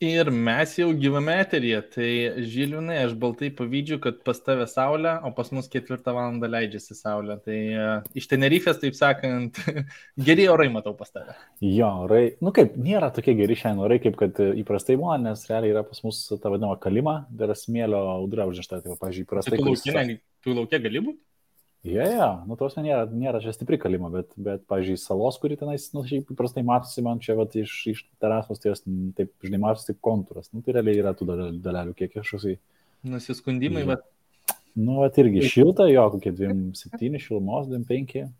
Ir mes jau gyvame eteryje, tai Žilvinai, aš baltai pavydžiu, kad pas tave saulė, o pas mus 4 valandą leidžiasi saulė. Tai iš Tenerifės, taip sakant, geri orai matau pas tave. Jo, orai, kaip, nėra tokie geri šiandien orai, kaip kad įprastai būna, nes realiai yra pas mus ta vadinama kalima, tai yra smėlio audra užnešta, tai pavyzdžiui, įprastai. Tu laukia gali būti? Tos nėra čia stipri kalima, bet pavyzdžiui, salos, kuri tenais, šiaip įprastai matosi man čia, iš terasos, tai jos taip, žinai, matosi taip kontūras, tai realiai yra tų dalelių, kiek kažkoksai. Nusiskundimai, bet... irgi šilta, jo, kokie 2,7 šilumos, 2,5,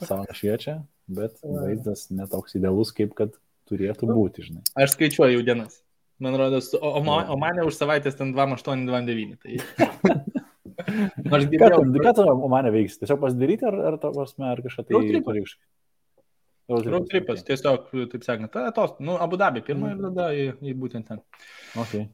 saulė šviečia, bet vaizdas netoks idealus, kaip kad turėtų būti, žinai. Aš skaičiuoju dienas, man rodos, o mane už savaitės ten 2,8, 2,9, tai... Ką tu mane veiks? Tiesiog pasidaryti ar kažką tai... Road tripas, tiesiog, taip sakant, Abu Dabi pirmą ir tada į būtent ten. Okay.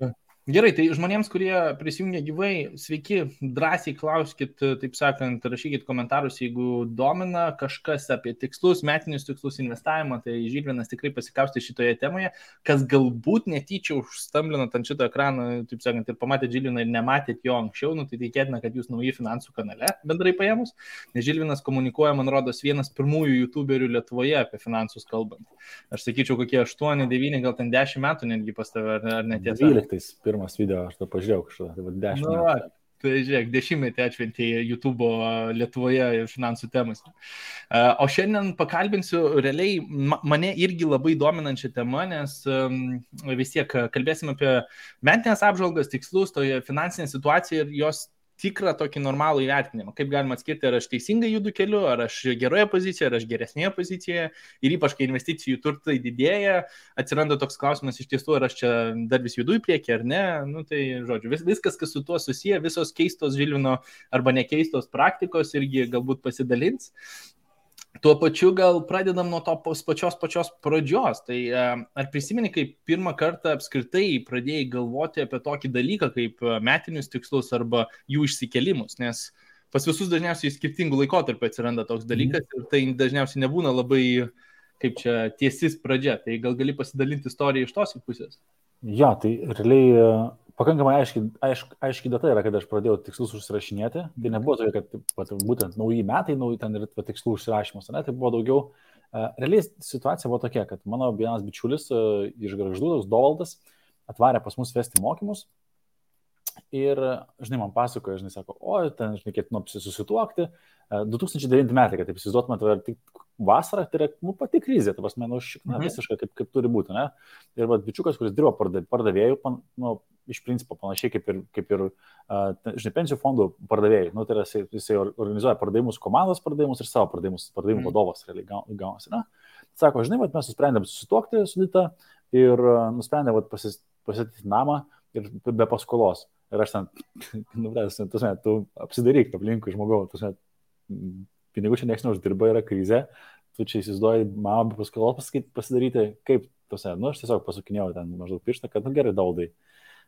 Gerai, tai žmonėms, kurie prisijungia gyvai, sveiki, drąsiai klauskit, taip sakant, rašykit komentarus, jeigu domina kažkas apie tikslus, metinius tikslus, investavimą, tai Žilvinas tikrai pasikausti šitoje temoje, kas galbūt netyčia užstamblinat ant šito ekrano, taip sakant, ir pamatėt Žilviną ir nematėt jo anksčiau, tai tikėtina, kad jūs nauji finansų kanale bendrai paėmus, nes Žilvinas komunikuoja, man rodos, vienas pirmųjų youtuberių Lietuvoje apie finansus kalbant. Aš sakyčiau, kokie 8, 9, gal ten 10 metų netgi pas tave, ar netiesa? 12 pirmas video, aš to pažiūrėjau kažką, tai 10 metų. Tai žiūrėk, 10 atšventė YouTube Lietuvoje finansų temas. O šiandien pakalbinsiu realiai mane irgi labai dominančią temą, nes vis tiek kalbėsim apie metinės apžvalgas, tikslus, toje finansinė situacija ir jos tikrą tokį normalų įvertinimą. Kaip galima atskirti, ar aš teisingai judu keliu, ar aš geroje pozicijoje, ar aš geresnėje pozicijoje. Ir ypač, kai investicijų turtai didėja, atsiranda toks klausimas iš tiesų, ar aš čia dar vis judu į priekį, ar ne. Tai, žodžiu, viskas, kas su tuo susiję, visos keistos Žilvino arba nekeistos praktikos irgi galbūt pasidalins. Tuo pačiu gal pradedam nuo to pačios pradžios. Tai ar prisimeni, kaip pirmą kartą apskritai pradėjai galvoti apie tokį dalyką kaip metinius tikslus arba jų išsikelimus, nes pas visus dažniausiai skirtingų laikotarpių atsiranda toks dalykas ir tai dažniausiai nebūna labai, kaip čia, tiesis pradžia. Tai gal gali pasidalinti istoriją iš tos pusės? Jo, tai realiai pakankamai aiški data yra, kad aš pradėjau tikslus užsirašinėti. Tai nebuvo tokia, kad būtent nauji metai, ten ir tikslų užsirašymas, ne? Tai buvo daugiau. Realiai situacija buvo tokia, kad mano vienas bičiulis iš Gargždų, toks Dovaldas, atvarė pas mus vesti mokymus. Ir, žinai, man pasakoja, žinai, sako, ten, žinai, ketinu susituokti. 2009 metai, kad taip įsivaizduotumėte, tai tik vasarą, tai yra pati krizė, tai pasme, visiškai kaip turi būti, ne? Ir bičiukas, kuris dirbo pardavėjų, iš principo panašiai kaip ir žinai, pensijų fondų pardavėjai. Tai yra, jisai organizuoja pardavimus, komandos pardavimus ir savo pardavimų vadovas realiai gaunasi, ne? Sako, žinai, mes nusprendėm susituokti su Dita ir nusprendėm pasityti namą ir be paskolos. Ir aš ten, tu apsidaryk aplinkui žmogau, pinigų čia nieks neuždirba, yra krizė, tu čia įsivaizduoji mamą be paskolos pasidaryti, kaip, aš tiesiog pasukinėjau ten maždaug pirštą, kad gerai, Daudai,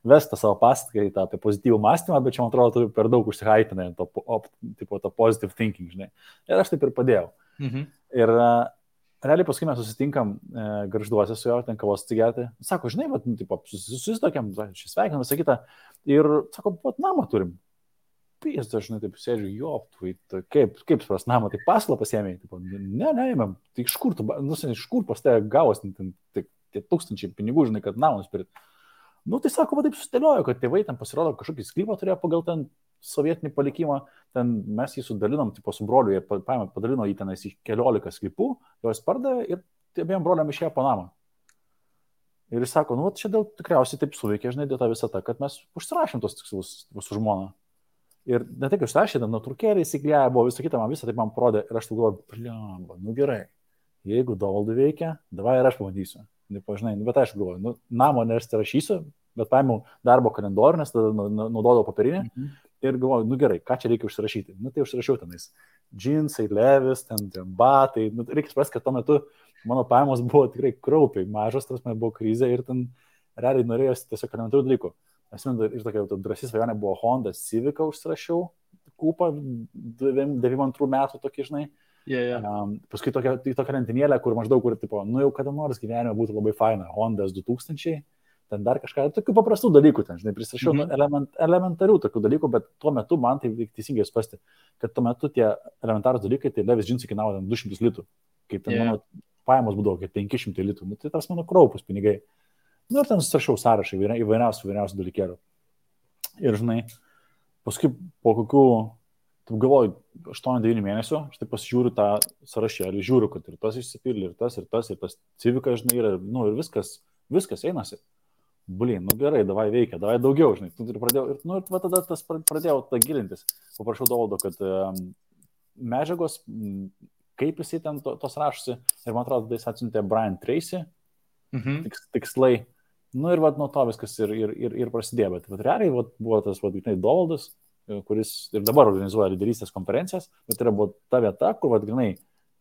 vestą savo paskaitą apie pozityvų mąstymą, bet čia, man atrodo, tu per daug užsihaipinai to positive thinking, žinai. Ir aš taip ir padėjau. Ir realiai paskui mes susitinkam Gargžduose su juo, ten kavos atsigerti. Sako, žinai, susitokiam, šis sveikinam, visą kitą. Ir sako, namą turim. Pijas, aš, žinai, taip sėdžiu, kaip supras namą, tai paslą pasiėmėjai. Ne, tai iš kur pas tave gavos tie tūkstančiai pinigų, žinai, kad namą nusipirkti. Tai sako, taip sustėliojo, kad tėvai ten pasirodo kažkokį sklypą turėjo pagal ten sovietinį palikimą, ten mes jį sudalinom, su broliu, jie padalino jį tenais į 14 sklypų, juos pardavė ir abiem broliam išėjo po namą. Ir jis sako, čia dėl tikriausiai taip suveikė, žinai, dėl tą visą tą, kad mes užsirašėm tos tikslus su žmona. Ir ne tik užsirašė, nuotraukėlė įsiklėja, buvo visą kitą, man visą taip man parodė ir aš tu galvoju, gerai, jeigu Dovaldui veikia, davai ir aš pabandysiu. Žinai, bet aš galvoju, namo nesirašysiu, bet paėmiau darbo kalendorių, nes tada naudodavau papirinę ir galvoju, gerai, ką čia reikia užsirašyti. Tai užsirašiau tenais džinsai, levis, ten batai. Reikia suprasti, kad tuo metu mano pajamos buvo tikrai kraupiai mažos, tas man buvo krizė ir ten realiai norėjosi tiesiog elementarių dalykų. Ir tokia drąsi svajonė buvo Honda Civic užsirašiau, kupą 92 metų tokį, žinai. Paskui tokia lentinėlė, kur maždaug, jau kada nors gyvenime būtų labai faina, Honda S2000, ten dar kažką, tokių paprastų dalykų, ten, žinai, prisirašiau elementarių tokių dalykų, bet tuo metu man tai teisingai suprasti, kad tuo metu tie elementarūs dalykai, tai Levis džinsai kainavo 200 litų, kai ten mano pajamos būdavo kaip 500 litų, nu, tai tas mano kraupus pinigai. Nu, ir ten susirašiau sąrašą įvairiausių dalykėlių. Ir, žinai, paskui po kokių, taip galvoju, 8-9 mėnesių, aš taip pasižiūriu tą sąrašėlį, žiūriu, kad ir tas išsipildė, ir tas civikas, žinai, ir, nu, ir viskas einasi. Blin, nu gerai, davai veikia, davai daugiau, žinai. Ir pradėjau, nu, ir tada tas pradėjau tą gilintis. Paprašau Dovaldo, kad medžiagos, kaip jisai ten tos rašosi, ir man atrodo, jis atsiuntė Brian Tracy, tikslai. Nu ir nuo to viskas ir prasidėjo, bet realiai buvo tas Dovaldas, kuris ir dabar organizuoja lyderystės konferencijas, bet yra buvo ta vieta, kur grinai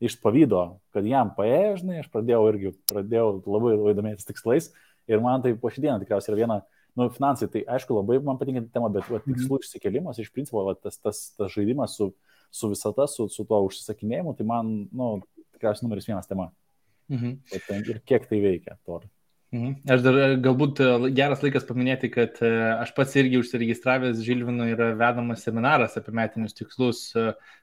iš pavydo, kad jam paėjo, žinai, aš pradėjau labai domėtis tikslais ir man tai po šį dieną tikriausiai yra viena, nu, finansai, tai aišku labai man patinka tema, bet tikslų išsikėlimas, iš principo tas žaidimas su visata, su tuo užsisakinėjimu, tai man, nu, tikriausiai numeris 1 tema. Ir kiek tai veikia, to. Aš dar galbūt geras laikas paminėti, kad aš pats irgi užsiregistravęs Žilvino yra vedamas seminaras apie metinius tikslus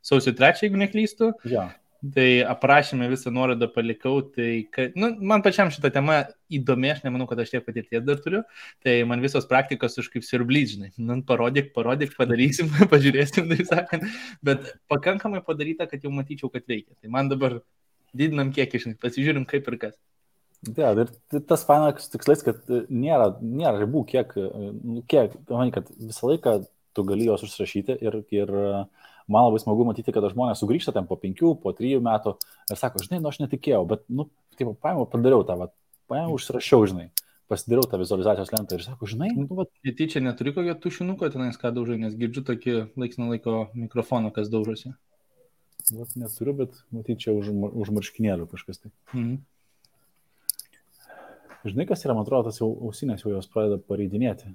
sausio 3, jeigu neklystu. Ja. Tai aprašymę visą nuorodą palikau, tai nu, man pačiam šitą temą įdomi, aš nemanau, kad aš tiek patirties dar turiu, tai man visos praktikos už kaip siurblys, žinai, nu, parodyk, padarysim, pažiūrėsim, tai sakant, bet pakankamai padaryta, kad jau matyčiau, kad veikia. Tai man dabar didinam kiekį, žinai, pasižiūrim kaip ir kas. Ja, ir tas fainas tikslais, kad nėra ribų, kiek, manai, kad visą laiką tu gali juos užsirašyti ir man labai smagu matyti, kad žmonės sugrįžta ten po 5, po 3 metų ir sako, žinai, nu aš netikėjau, bet, nu, kaip padariau tą, užsirašiau, žinai, pasidariau tą vizualizacijos lentą ir sako, žinai, nu, Tyčia neturi kokio tušinuko tenais, ką daužai, nes girdžiu tokį laiks nuo laiko mikrofoną, kas daužosi. Neturiu, bet matyčiau už marškinėlių kažkas tai. Žinai, kas yra, man atrodo, tas jau ausinės jau jos pradeda pareidinėti.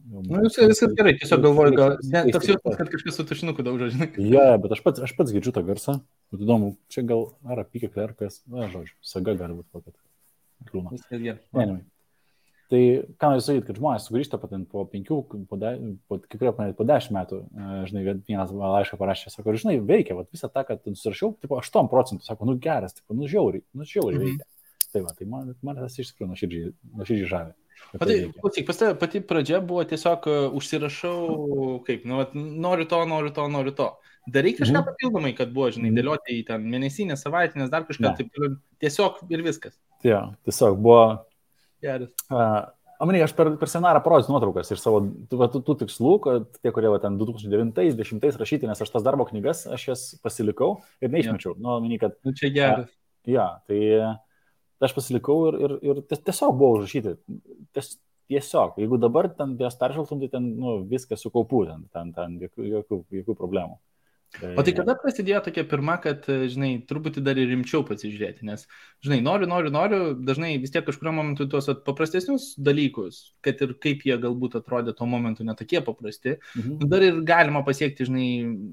Nu, viskas gerai, tiesiog galvoju, gal toks jausmas, kad kažkas su tušinuku daužo, žinai. Ja, bet aš pats girdžiu tą garsą. Bet įdomu, čia gal ar apykėklė, ar kas, žodžiu, saga gali būti kokia. Kliūna. Viskas gerai. Tai ką noriu sakyti, kad žmonės sugrįžta po 5, po 10 metų, žinai, vienas laišką parašė, sako, žinai, veikia, visą tą, kad nusirašiau, tipo 8%, sako, nu geras, tipo, nu žiauriai veikia. Tai man tas iš tikrųjų nuoširdžiai žavi. Klausyk, pas tave pati pradžia buvo tiesiog užsirašau, kaip, nu, noriu to. Darai kažką papildomai, kad buvo, žinai, dėlioti į ten mėnesinės, savaitinės, dar kažką, taip, tiesiog ir viskas. Ja, tiesiog buvo... Geras. Amanai, aš per seminarą parodysiu nuotraukas iš savo tų tikslų, kad tie, kurie ten 2009-2010 rašyti, nes aš tas darbo knygas, aš jas pasilikau ir neišmečiau. Ja. Nu, kad... Nu, čia geras. Ja, tai aš pasilikau ir tiesiog buvo užrašyti. Tiesiog, jeigu dabar ten jas peržvelgtum, tai ten, nu, viskas su kaupu, ten jokių problemų. O tai kada prasidėjo tokia pirma, kad, žinai, truputį dar ir rimčiau pasižiūrėti, nes, žinai, noriu, dažnai vis tiek kažkurio momentu tuos paprastesnius dalykus, kad ir kaip jie galbūt atrodė tuo momentu netokie paprasti, dar ir galima pasiekti, žinai,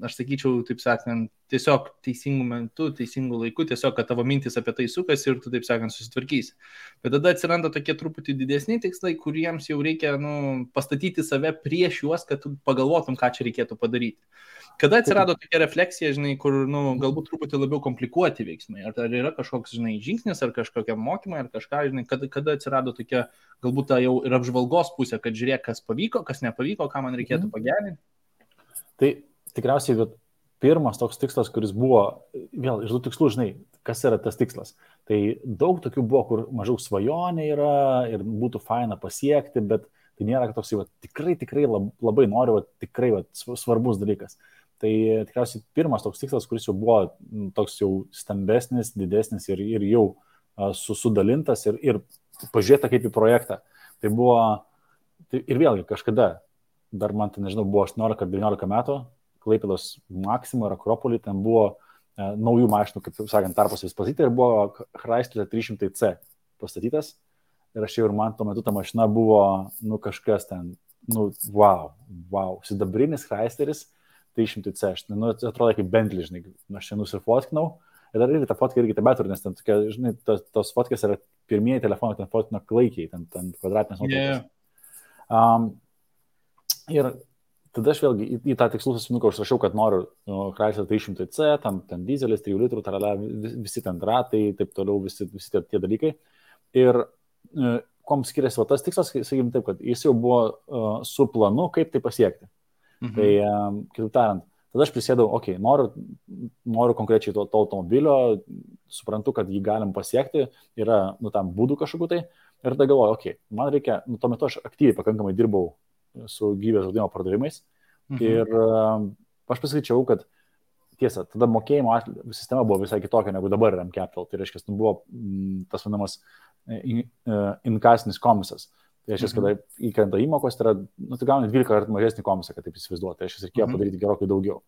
aš sakyčiau, taip sakant, tiesiog teisingų metų, teisingų laikų, tiesiog, kad tavo mintis apie tai sukasi ir tu, taip sakant, susitvarkysi. Bet tada atsiranda tokie truputį didesni tikslai, kuriems jau reikia, nu, pastatyti save prieš juos, kad tu pagalvotum, ką čia reikėtų padaryti. Kada atsirado tokia refleksija, žinai, kur, nu, galbūt truputį labiau komplikuoti veiksmai? Ar yra kažkoks, žinai, žingsnis, ar kažkokia mokymai, ar kažką, žinai, kada atsirado tokia, galbūt ta jau ir apžvalgos pusė, kad žiūrėk, kas pavyko, kas nepavyko, ką man reikėtų pagerinti? Tai tikriausiai pirmas toks tikslas, kuris buvo, vėl iš tų tikslų, žinai, kas yra tas tikslas. Tai daug tokių buvo, kur mažiau svajonė yra ir būtų faina pasiekti, bet tai nėra toks, tikrai labai noriu, tikrai svarbus dalykas. Tai tikriausiai pirmas toks tikslas, kuris jau buvo toks jau stambesnis, didesnis ir jau sudalintas ir pažiūrėta kaip į projektą. Tai buvo, ir vėlgi kažkada, dar man tai nežinau, buvo 18 ar 19 metų, Klaipėdos Maxima ir Akropolį, ten buvo naujų mašinų, kaip sakant, tarpas vis pastatyti ir buvo Chrysler 300C pastatytas. Ir aš jau ir man tuo metu ta mašina buvo, nu kažkas ten, nu wow, sidabrinis Chrysleris 300C, nu atrodo kaip Bentley, žinai, aš čia nusifotkinau Ir dar irgi ta fotka irgi tebe turi, nes ten tokia, žinai, tos fotkės yra pirmieji telefonai, ten fotkina klaikiai, ten kvadratinės nuotraukos. Ir tada aš vėlgi į tą tikslų sąsiuvinuką užrašiau, kad noriu Chrysler 300C, ten dizelis, 3 litrų, tarala, visi ten ratai, taip toliau, visi tie dalykai. Ir kuom skiriasi va tas tikslas, sakykime taip, kad jis jau buvo su planu, kaip tai pasiekti. Tai, kitaip tariant, tada aš prisėdau, noriu konkrečiai to automobilio, suprantu, kad jį galim pasiekti, yra, tam būdų kažkokiu tai, ir tada galvoju, man reikia, tuo metu aš aktyviai pakankamai dirbau su gyvybės draudimo pardavimais ir aš pasakyčiau, kad tiesa, tada mokėjimo sistema buvo visai kitokia negu dabar yra M-Capital, tai reiškia, buvo tas vadinamas inkasinis komisas. Tai reiškia, kada įkrenta įmokos, tai yra, tai gauni 12 kartų mažesnį komisą, kad taip įsivaizduoti, tai reiškia, reikėjo padaryti gerokai daugiau.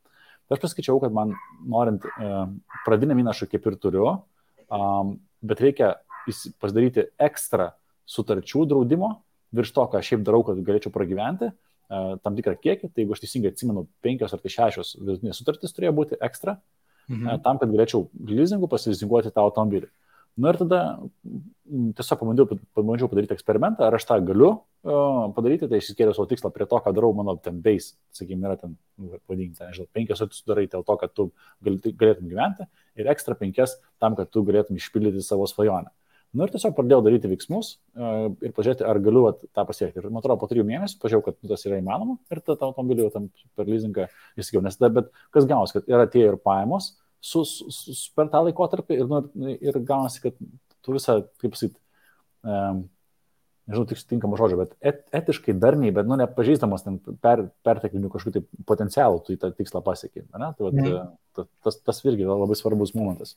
Tai aš pasakyčiau, kad man norint pradinę įnašą kaip ir turiu, bet reikia pasidaryti ekstra sutarčių draudimo, virš to, ką aš šiaip darau, kad galėčiau pragyventi, tam tikrą kiekį, tai jeigu aš teisingai atsimenu, 5 ar 6 vidutinės sutartys turėjo būti ekstra, tam, kad galėčiau leasingu pasilizinguoti tą automobilį. Ir tada tiesiog pabandžiau padaryti eksperimentą, ar aš tą galiu padaryti, tai išsikėliau savo tikslą prie to, ką darau mano ten base, sakykime, yra ten, vadinti, nežinau, 5 sutartys darai dėl to, kad tu galėtum gyventi ir ekstra 5 tam, kad tu galėtum išpildyti savo svajonę. Ir tiesiog pradėjau daryti veiksmus ir pažiūrėti, ar galiu tą pasiekti. Ir man atrodo, po 3 mėnesių pažiūrėjau, kad tas yra įmanoma ir tą automobilį jau tam per leasingą įsigiau. Nes tada, bet kas gaunasi, kad yra tie ir pajamos per tą laikotarpį ir gaunasi, kad tu visą, kaip pasakyti, nežinau, tinkamą žodžią, bet etiškai darniai, bet nepažįstamas ten perteklinių kažkokių tai potencialų, tu į tą tikslą pasiekė. Tai tas irgi yra labai svarbus momentas.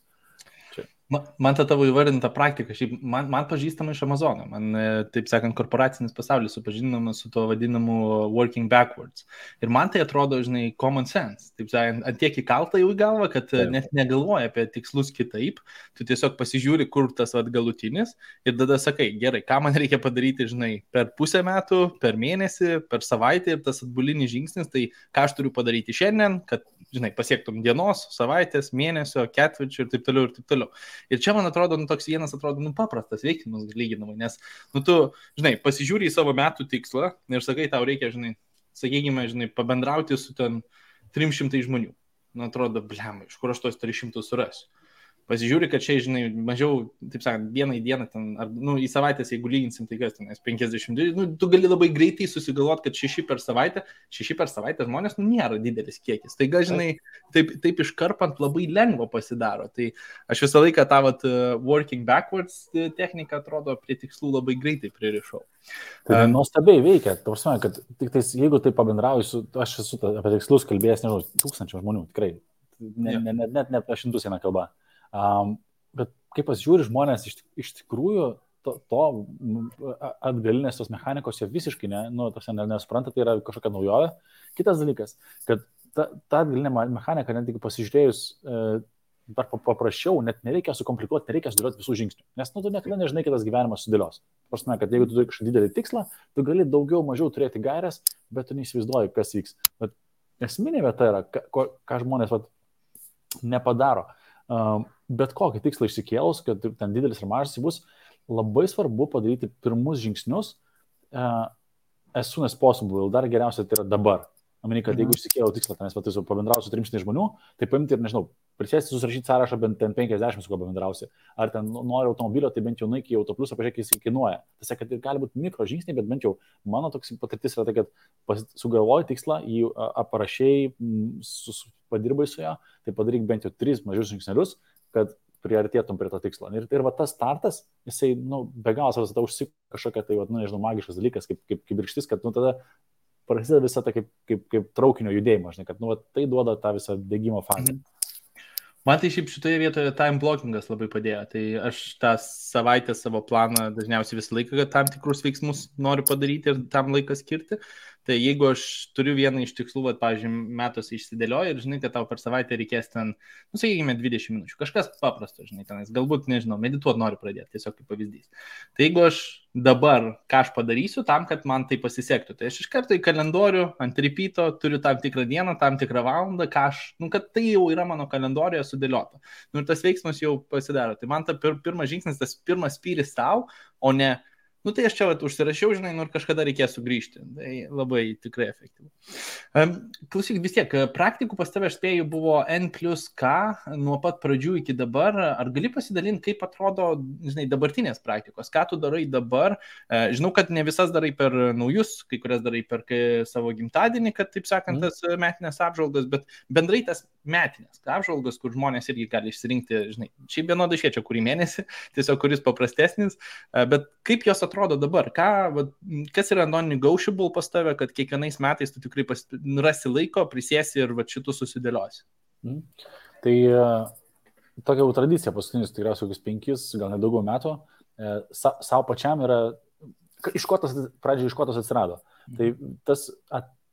Man ta tavo įvardinta praktika, šiaip man pažįstama iš Amazono, man, taip sakant, korporacinis pasaulis supažindinamas su to vadinamu working backwards. Ir man tai atrodo, žinai, common sense. Taip sakant, ant tiek įkalta jau į galvą, kad net negalvoja apie tikslus kitaip, tu tiesiog pasižiūri, kur tas galutinis ir tada sakai, gerai, ką man reikia padaryti, žinai, per pusę metų, per mėnesį, per savaitę ir tas atbulinis žingsnis, tai ką aš turiu padaryti šiandien, kad, žinai, pasiektum dienos, savaitės, mėnesio, ketvirčio ir taip toliau ir taip toliau. Ir čia, man atrodo, toks vienas atrodo, paprastas veiksmas lyginamai, nes, tu, žinai, pasižiūri į savo metų tikslą ir sakai, tau reikia, žinai, sakykime, žinai, pabendrauti su ten 300 žmonių. Man atrodo, blemai, iš kur aš tos 300 surasiu. Pasižiūri, kad čia, žinai, mažiau, taip sakant, vieną į dieną, ten, ar, į savaitės, jeigu lyginsim, tai kas ten, 50, tu gali labai greitai susigalvoti, kad 6 per savaitę žmonės, nėra didelis kiekis. Tai, žinai, taip iškarpant labai lengva pasidaro. Tai aš visą laiką tą working backwards techniką, atrodo, prie tikslų labai greitai pririšau. Tai nuostabiai veikia, tavasme, kad tik tais, jeigu tai pabendrauju, aš esu apie tikslus kalbėjęs, nežinau, 1000 žmonių, tikrai, net apie 100 eina kalba. Bet kaip pasižiūri žmonės iš tikrųjų to atgalinės tos mechanikos jie visiškai nesupranta, tai yra kažkokia naujovė. Kitas dalykas, kad ta atgalinė mechanika, net tik pasižiūrėjus dar paprasčiau, net nereikia sukomplikuoti, nereikia sudėlioti visų žingsnių, nes tu niekada nežinai, kaip tas gyvenimas sudėlios. Prasme, kad jeigu tu turi kažkokį didelį tikslą, tu gali daugiau mažiau turėti gairias, bet tu neįsivaizduoji, kas vyks. Bet esminė vieta yra, ką žmonės nepadaro. Bet kokį tikslą išsikėlus, kad ten didelis ir mažas bus, labai svarbu padaryti pirmus žingsnius as soon as possible, dar geriausia tai yra dabar. Manau, kad jeigu išsikėliau tikslą, nes pabendrausiu 300 žmonių, tai paimti ir, nežinau, prisėsti, susirašyti sąrašą bent 50, su kuo pabendrausi. Ar ten nori automobilio, tai bent jau nueik į autoplusą, pažiūrėk, jis kainuoja. Tai kad gali būti mikro žingsniai, bet bent jau mano toks patirtis yra tai, kad sugalvoji tikslą, jį aprašiai, padirbai su jo, tai padaryk bent jau 3 mažius žingsnelius, kad priartėtum prie to tikslo. Ir tas startas, jisai, be galo savas užsik kažkokia, tai, nežinau, magiškas dalykas, kaip kibirkštis, kad, tada prasideda visą tą kaip traukinio judėjimą, žinai, kad, tai duoda tą visą degimo fazę. Man tai šiaip šitoje vietoje time blockingas labai padėjo. Tai aš tą savaitę savo planą dažniausiai visą laiką, kad tam tikrus veiksmus noriu padaryti ir tam laiką skirti. Tai jeigu aš turiu vieną iš tikslų, pavyzdžiui, metuose išsidėlioju ir žinai, kad tau per savaitę reikės ten, sakykime, 20 minučių, kažkas paprasto, žinai, tenais, galbūt, nežinau, medituoti noriu pradėti, tiesiog kaip pavyzdys. Tai jeigu aš dabar, ką aš padarysiu tam, kad man tai pasisektų, tai aš iš karto į kalendorių ant repeato turiu tam tikrą dieną, tam tikrą valandą, kad tai jau yra mano kalendorijoje sudėliota. Ir tas veiksmas jau pasidaro. Tai man ta pirmas žingsnis, tas pirmas spyris tau, o ne tai aš čia užsirašiau, žinai, ir kažkada reikės sugrįžti. Tai labai tikrai efektyvu. Klausyk, vis tiek, praktikų pas tave, aš spėju, buvo N+K nuo pat pradžių iki dabar. Ar gali pasidalinti, kaip atrodo, žinai, dabartinės praktikos? Ką tu darai dabar? Žinau, kad ne visas darai per naujus, kai kurias darai per savo gimtadienį, kad, taip sakant, tas metinės apžvalgas, bet bendrai tas metinės apžvalgas, kur žmonės irgi gali išsirinkti, žinai, šiaip vienodai šviečia kurį mėnesį, tiesiog kuris paprastesnis, bet kaip jos atrodo dabar? Kas yra non-negotiable pas tave, kad kiekvienais metais tu tikrai rasi laiko, prisėsi ir šitų susidėliosi? Tai tokia jau tradicija paskutinius tikriausiai kokius 5, gal net daugiau metų, savo pačiam yra, iš ko tas atsirado. Tai tas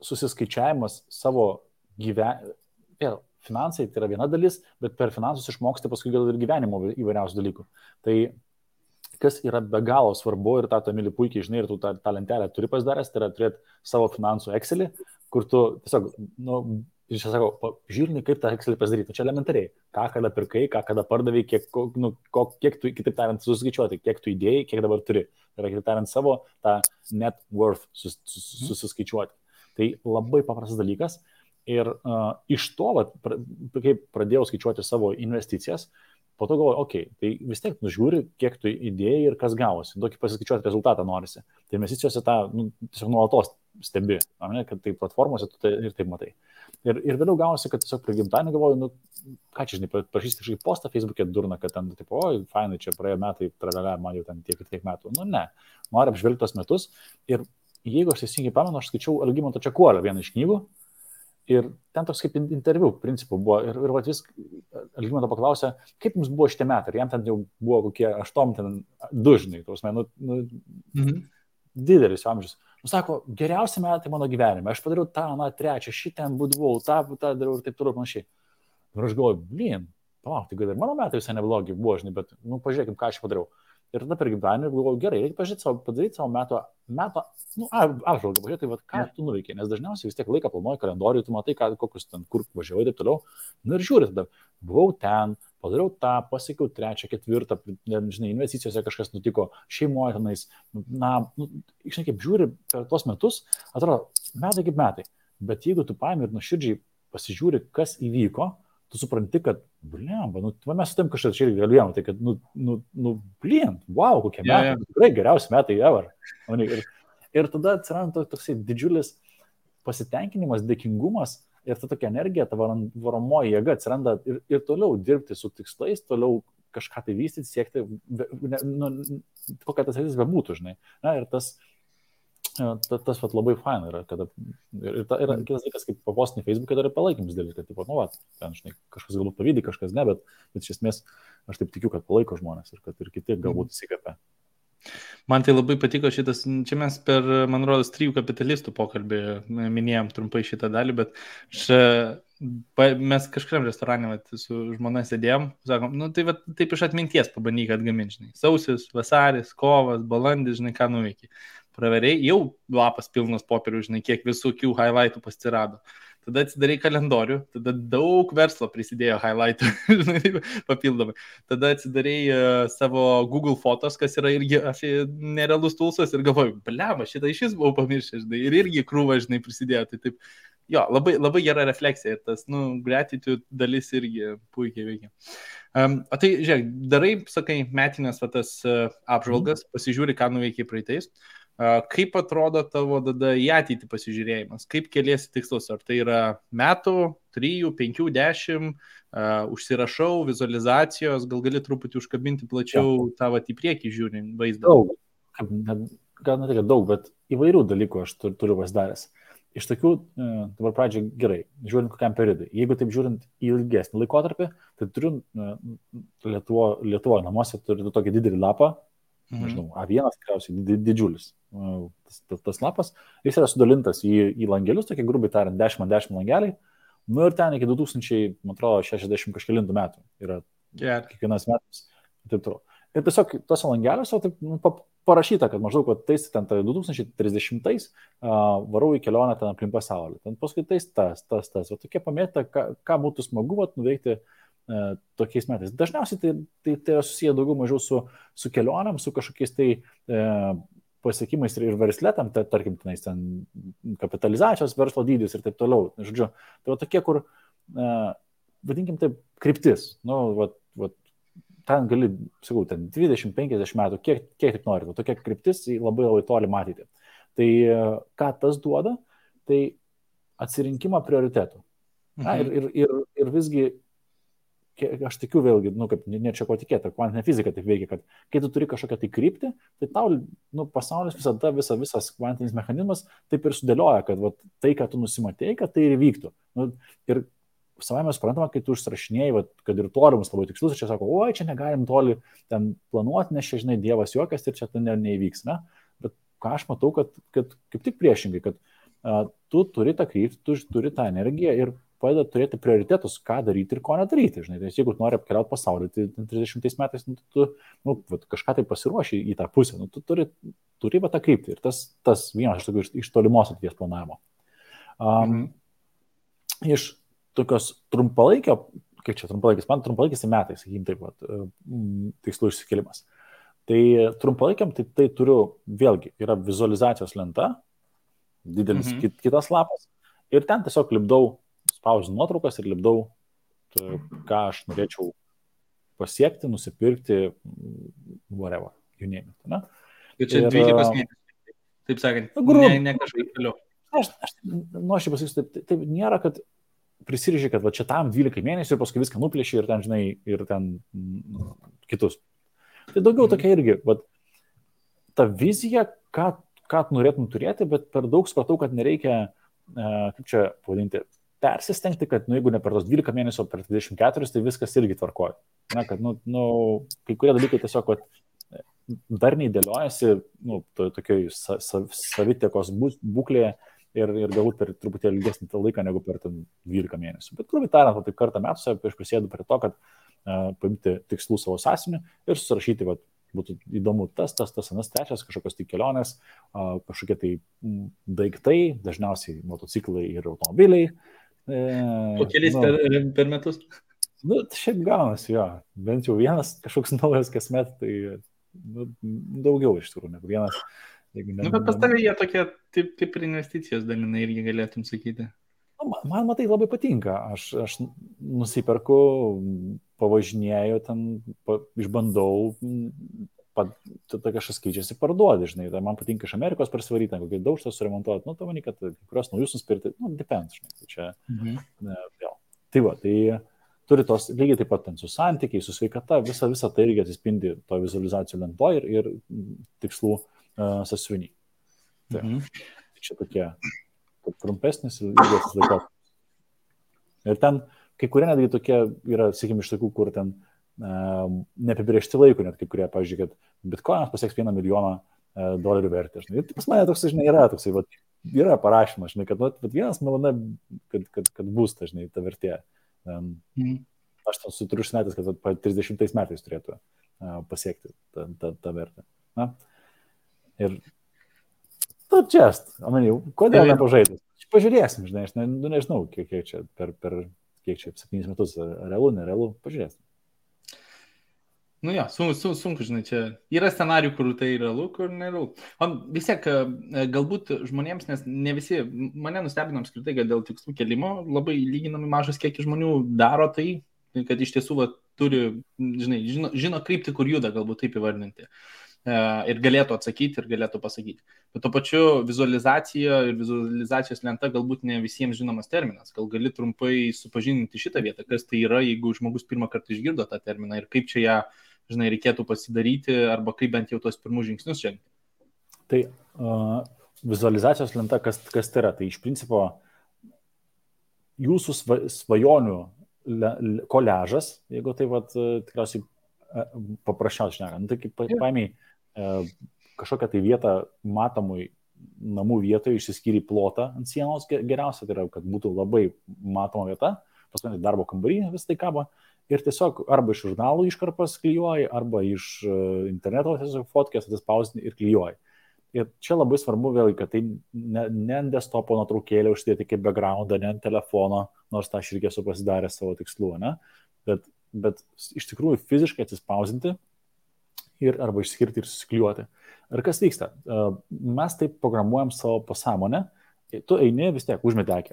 susiskaičiavimas savo finansai tai yra viena dalis, bet per finansus išmoksti paskui gal ir gyvenimo įvairiausių dalykų. Tai kas yra be galo svarbu ir tą Emili puikiai žinai ir tu tą lentelę turi pasidaręs, tai yra turėti savo finansų Excelį, kur tu tiesiog, iš čia sakau, žiūrni, kaip tą Excelį pasidaryti. Čia elementariai, ką kada pirkai, ką kada pardavai, kiek tu, kitaip tariant, suskaičiuoti, kiek tu įdėjai, kiek dabar turi. Tai yra, kitaip tariant, savo tą net worth susiskaičiuoti. Tai labai paprastas dalykas. Ir iš to, kai pradėjau skaičiuoti savo investicijas, po to galvoju, tai vis tiek nužiūri, kiek tu įdėjai ir kas gavosi. Tokį pasiskaičiuoti rezultatą norisi. Tai investicijose tą tiesiog nuolatos stebi, kad tai platformose tu ir taip matai. Ir vėliau gavosi, kad tiesiog prie gimtadienio galvoju, ką čia, žinai, prašysi kažkokį postą Facebook'e durna, kad ten, tipo, fainai, čia praėjo metai, man jau ten tiek ir tiek metų. Ne, noriu apžvelgti tos metus. Ir jeigu aš teisingai pamenu, aš skaičiau Algimanto Čekuolio vieną iš knygų. Ir ten toks kaip interviu principų buvo. Ir vis Algimanto paklausė, kaip jums buvo šitie metai. Ir jam ten jau buvo kokie 8-2, žinai, didelis amžius. Sako, geriausi metai mano gyvenime. Aš padariau tą, trečią, šitą būdavau, tą dariau ir taip toliau panašiai. Ir aš galvoju, tai gal ir mano metai visai neblogi buvo, žinai, bet pažiūrėkim, ką aš padariau. Ir tada per gimtadienį galvojau, gerai, reikia padaryti savo meto apžvalgą, pažiūrėti, ką tu nuveikiai, nes dažniausiai vis tiek laiką planuoji kalendorių, tu matai, kokius ten, kur važiavai ir taip toliau. Ir žiūri tada, buvau ten, padariau tą, pasiekiau 3, 4, žinai, investicijose kažkas nutiko, šeimoje tenais, žinai, kaip žiūri per tuos metus, atrodo, metai kaip metai, bet jeigu tu paimi ir nuoširdžiai pasižiūri, kas įvyko, tu supranti, kad, mes su tam kažkas čia irgi galėjom, tai kad, wow, kokie metai, tikrai geriausi metai ever. Ir tada atsiranda toksai didžiulis pasitenkinimas, dėkingumas ir ta tokia energija, ta varomoji jėga atsiranda ir toliau dirbti su tikslais, toliau kažką tai vystyti, siekti, kokia tas sėtis bebūtų, žinai. Ir tas labai faina yra, kad ir kitas dalykas, kaip papostinį Facebook'e dar ir palaikymus dėlį, kad, ten, žinai, kažkas galbūt pavydį, kažkas ne, bet iš esmės aš taip tikiu, kad palaiko žmonės ir kad ir kiti galbūt įsikvepia. Man tai labai patiko šitas, čia mes per, man rodos, 3 kapitalistų pokalbį minėjom trumpai šitą dalį, bet mes kažkuriam restorane su žmona sėdėjom, sakom, taip iš atminties pabandyk atgaminti, žinai, sausis, vasaris, kovas, balandis, žinai, ką nuveikiai. Praveriai, jau lapas pilnas popierių, žinai, kiek visokių highlightų pasirado. Tada atsidarai kalendorių, tada daug verslo prisidėjo highlightų, žinai, papildomai. Tada atsidarai savo Google fotos, kas yra irgi nerealus tulsas ir galvoju, blema, šitą iš vis buvau pamiršęs, žinai, ir irgi krūva, žinai, prisidėjo. Tai taip, jo, labai, labai gera refleksija ir tas, gratitude dalis irgi puikiai veikia. O tai, žiūrėk, darai, sakai, metinės tas apžvalgas, pasižiūri, ką nuveikiai praeitais. Kaip atrodo tavo tada į ateitį pasižiūrėjimas? Kaip keliesi tikslus? Ar tai yra metų, 3, 5, 10, užsirašau, vizualizacijos, gal gali truputį užkabinti plačiau tavo į priekį žiūrint vaizdą? Daug, gal ne tik daug, bet įvairių dalykų aš turiu pasidaręs. Iš tokių, dabar pradžiai gerai, žiūrint kokiam periodui. Jeigu taip žiūrint į ilgesnį laikotarpį, tai turiu Lietuvoje namuose turiu tokį didelį lapą, nežinau, A1 tikriausiai didžiulis tas lapas, jis yra sudalintas į langelius, tokie grubiai tariant, 10x10 langeliai, nu ir ten iki 2060 kažkelintų metų yra kiekvienas metas. Taip toliau. Ir tiesiog tose langeliuose parašyta, kad maždaug tais ten 2030 varau į kelionę ten aplink pasaulį. Ten paskui tais tas. O tokie pamėta, ką būtų smagu nuveikti tokiais metais. Dažniausiai tai yra susiję daugiau mažiau su kelionėm, su kažkokiais tai pasiekimais ir versletam, tarkim, ten kapitalizacijos verslo dydis ir taip toliau. Žodžiu, tai tokie, kur, vadinkim taip, kryptis. Ten gali, sakau, ten 20-50 metų, kiek tik nori, tokia kryptis labai labai toli matyti. Tai ką tas duoda, tai atsirinkimą prioritetų. Ir visgi, aš tikiu vėlgi, kaip ne čia ko tikėti, kvantinė fizika taip veikia, kad kai tu turi kažkokią tai kryptį, tai tau pasaulis visada, visas kvantinis mechanizmas taip ir sudėlioja, kad tai, ką tu nusimatėjai, kad tai ir vyktų. Ir savai mes suprantama, kai tu užsirašinėjai, kad ir tolimus labai tikslus, čia sako, oi, čia negalim toli ten planuoti, nes čia, žinai, Dievas juokas ir čia tai neįvyks, ne? Bet ką aš matau, kad kaip tik priešingai, kad tu turi tą kryptį, tu turi tą energiją ir padeda turėti prioritetus, ką daryti ir ko nedaryti, žinai. Tai jeigu tu nori apkeliauti pasaulį, tai 30 metais tu kažką tai pasiruoši į tą pusę, tu turi tą kryptį ir tas vienas iš tolimos ateities planavimo. Iš tokios trumpalaikio, kaip čia trumpalaikis, man trumpalaikis metais, sakykim taip, tikslų išsikėlimas. Tai trumpalaikiam tai turiu, vėlgi, yra vizualizacijos lenta, didelis kitas lapas, ir ten tiesiog lipdau, spausinu nuotraukas ir lipdau, ką aš norėčiau pasiekti, nusipirkti, whatever, you name it. Ne? Ir čia 12 mėnesių, taip sakant, ne kažkaip toliau. Aš nuoširdžiai pasakysiu, taip nėra, kad prisiriži, kad čia tam 12 mėnesių ir paskui viską nuplėši ir ten, žinai, ir ten kitus. Tai daugiau tokia irgi, ta vizija, ką norėtum turėti, bet per daug supratau, kad nereikia, kaip čia pavadinti, persistengti, kad, jeigu ne per tos 12 mėnesių, per 24, tai viskas irgi tvarkoja. Na, kad, kai kurie dalykai tiesiog, dar neįdėliojasi, tokioj savitekos būklėje, ir galbūt per truputėlį ilgesnį laiką negu per 12 mėnesių. Bet grubiai tariant, taip kartą metuose aš prisėdu prie to, kad paimti tikslų savo sąsiuvinį ir susirašyti, būtų įdomu tas, anas, trečias, kažkokios tai kelionės, kažkokie tai daiktai, dažniausiai motociklai ir automobiliai. Po keliais per metus? Šiaip gaunasi, jo. Bent jau vienas kažkoks naujas kasmet, tai daugiau iš tikrųjų negu vienas. Bet pas tavę jie tokie kaip ir investicijos dalinai irgi galėtum sakyti. Man matai labai patinka. Aš nusiperku, pavažinėjau ten, išbandau, kažkas keičiasi, parduodi, žinai. Tai man patinka iš Amerikos prasivaryti, kokį daužtą suremontuoti. Tu manai, kad kurios naujus nuspirti, depends, žinai. Tai čia, vėl. Tai turi tos lygiai taip pat ten su santykiai, su sveikata, visa tai irgi atsispindi to vizualizacijų lentoje ir tikslų sąsiuvinį. Čia tokie trumpesnis ir ilgesnis laikotarpis. Ir ten kai kurie netgi tokie yra, sakykime, iš tokių, kur ten neapibrėžti laikų, net kai kurie, pavyzdžiui, kad bitkoinas pasieks $1 milijoną vertę. Ir pas mane toks, žinai, yra toksai, yra parašymas, žinai, kad $1 milijonas, kad bus, žinai, ta vertė. Aš ten turiu užsimetęs, kad 30 metais turėtų pasiekti tą vertę. Na? Ir kodėl nepažaidus? Pažiūrėsim, žinai, aš nežinau, kiek čia per 7 metus realu, nerealu, pažiūrėsim. Sunku, žinai, čia yra scenarijų, kur tai realu, kur nerealu. O vis tiek, galbūt žmonėms, nes ne visi, mane nustebino apskritai, kad dėl tikslų kelimo labai lyginami mažas kiekis žmonių daro tai, kad iš tiesų turi, žinai, žino kryptį, kur juda, galbūt taip įvardinti. Ir galėtų atsakyti ir galėtų pasakyti. Bet to pačiu vizualizacija ir vizualizacijos lenta galbūt ne visiems žinomas terminas. Gal gali trumpai supažindinti šitą vietą, kas tai yra, jeigu žmogus pirmą kartą išgirdo tą terminą ir kaip čia ją, žinai, reikėtų pasidaryti arba kaip bent jau tos pirmus žingsnius žengti. Tai vizualizacijos lenta, kas tai yra? Tai iš principo jūsų svajonių koležas, jeigu tai tikriausiai paprasčiausiai šnekant. Tai kaip paėmiai kažkokią tai vietą matomui namų vietoje išsiskyrė plotą ant sienos geriausia, tai yra, kad būtų labai matoma vieta, paskui darbo kambarį vis tai kabo ir tiesiog arba iš žurnalų iškarpas klijuoji, arba iš interneto tiesiog fotkės atsispausdini ir klijuoji. Ir čia labai svarbu vėlgi, kad tai ne ant desktopo nuotraukėlę užsidėti kaip backgroundą, ne ant telefono, nors tą aš irgi esu pasidaręs savo tikslų, ne? Bet iš tikrųjų fiziškai atsispausdinti ir arba išskirti ir susiklijuoti. Ir kas vyksta? Mes taip programuojam savo pasąmonę, tu eini vis tiek, užmeti akį,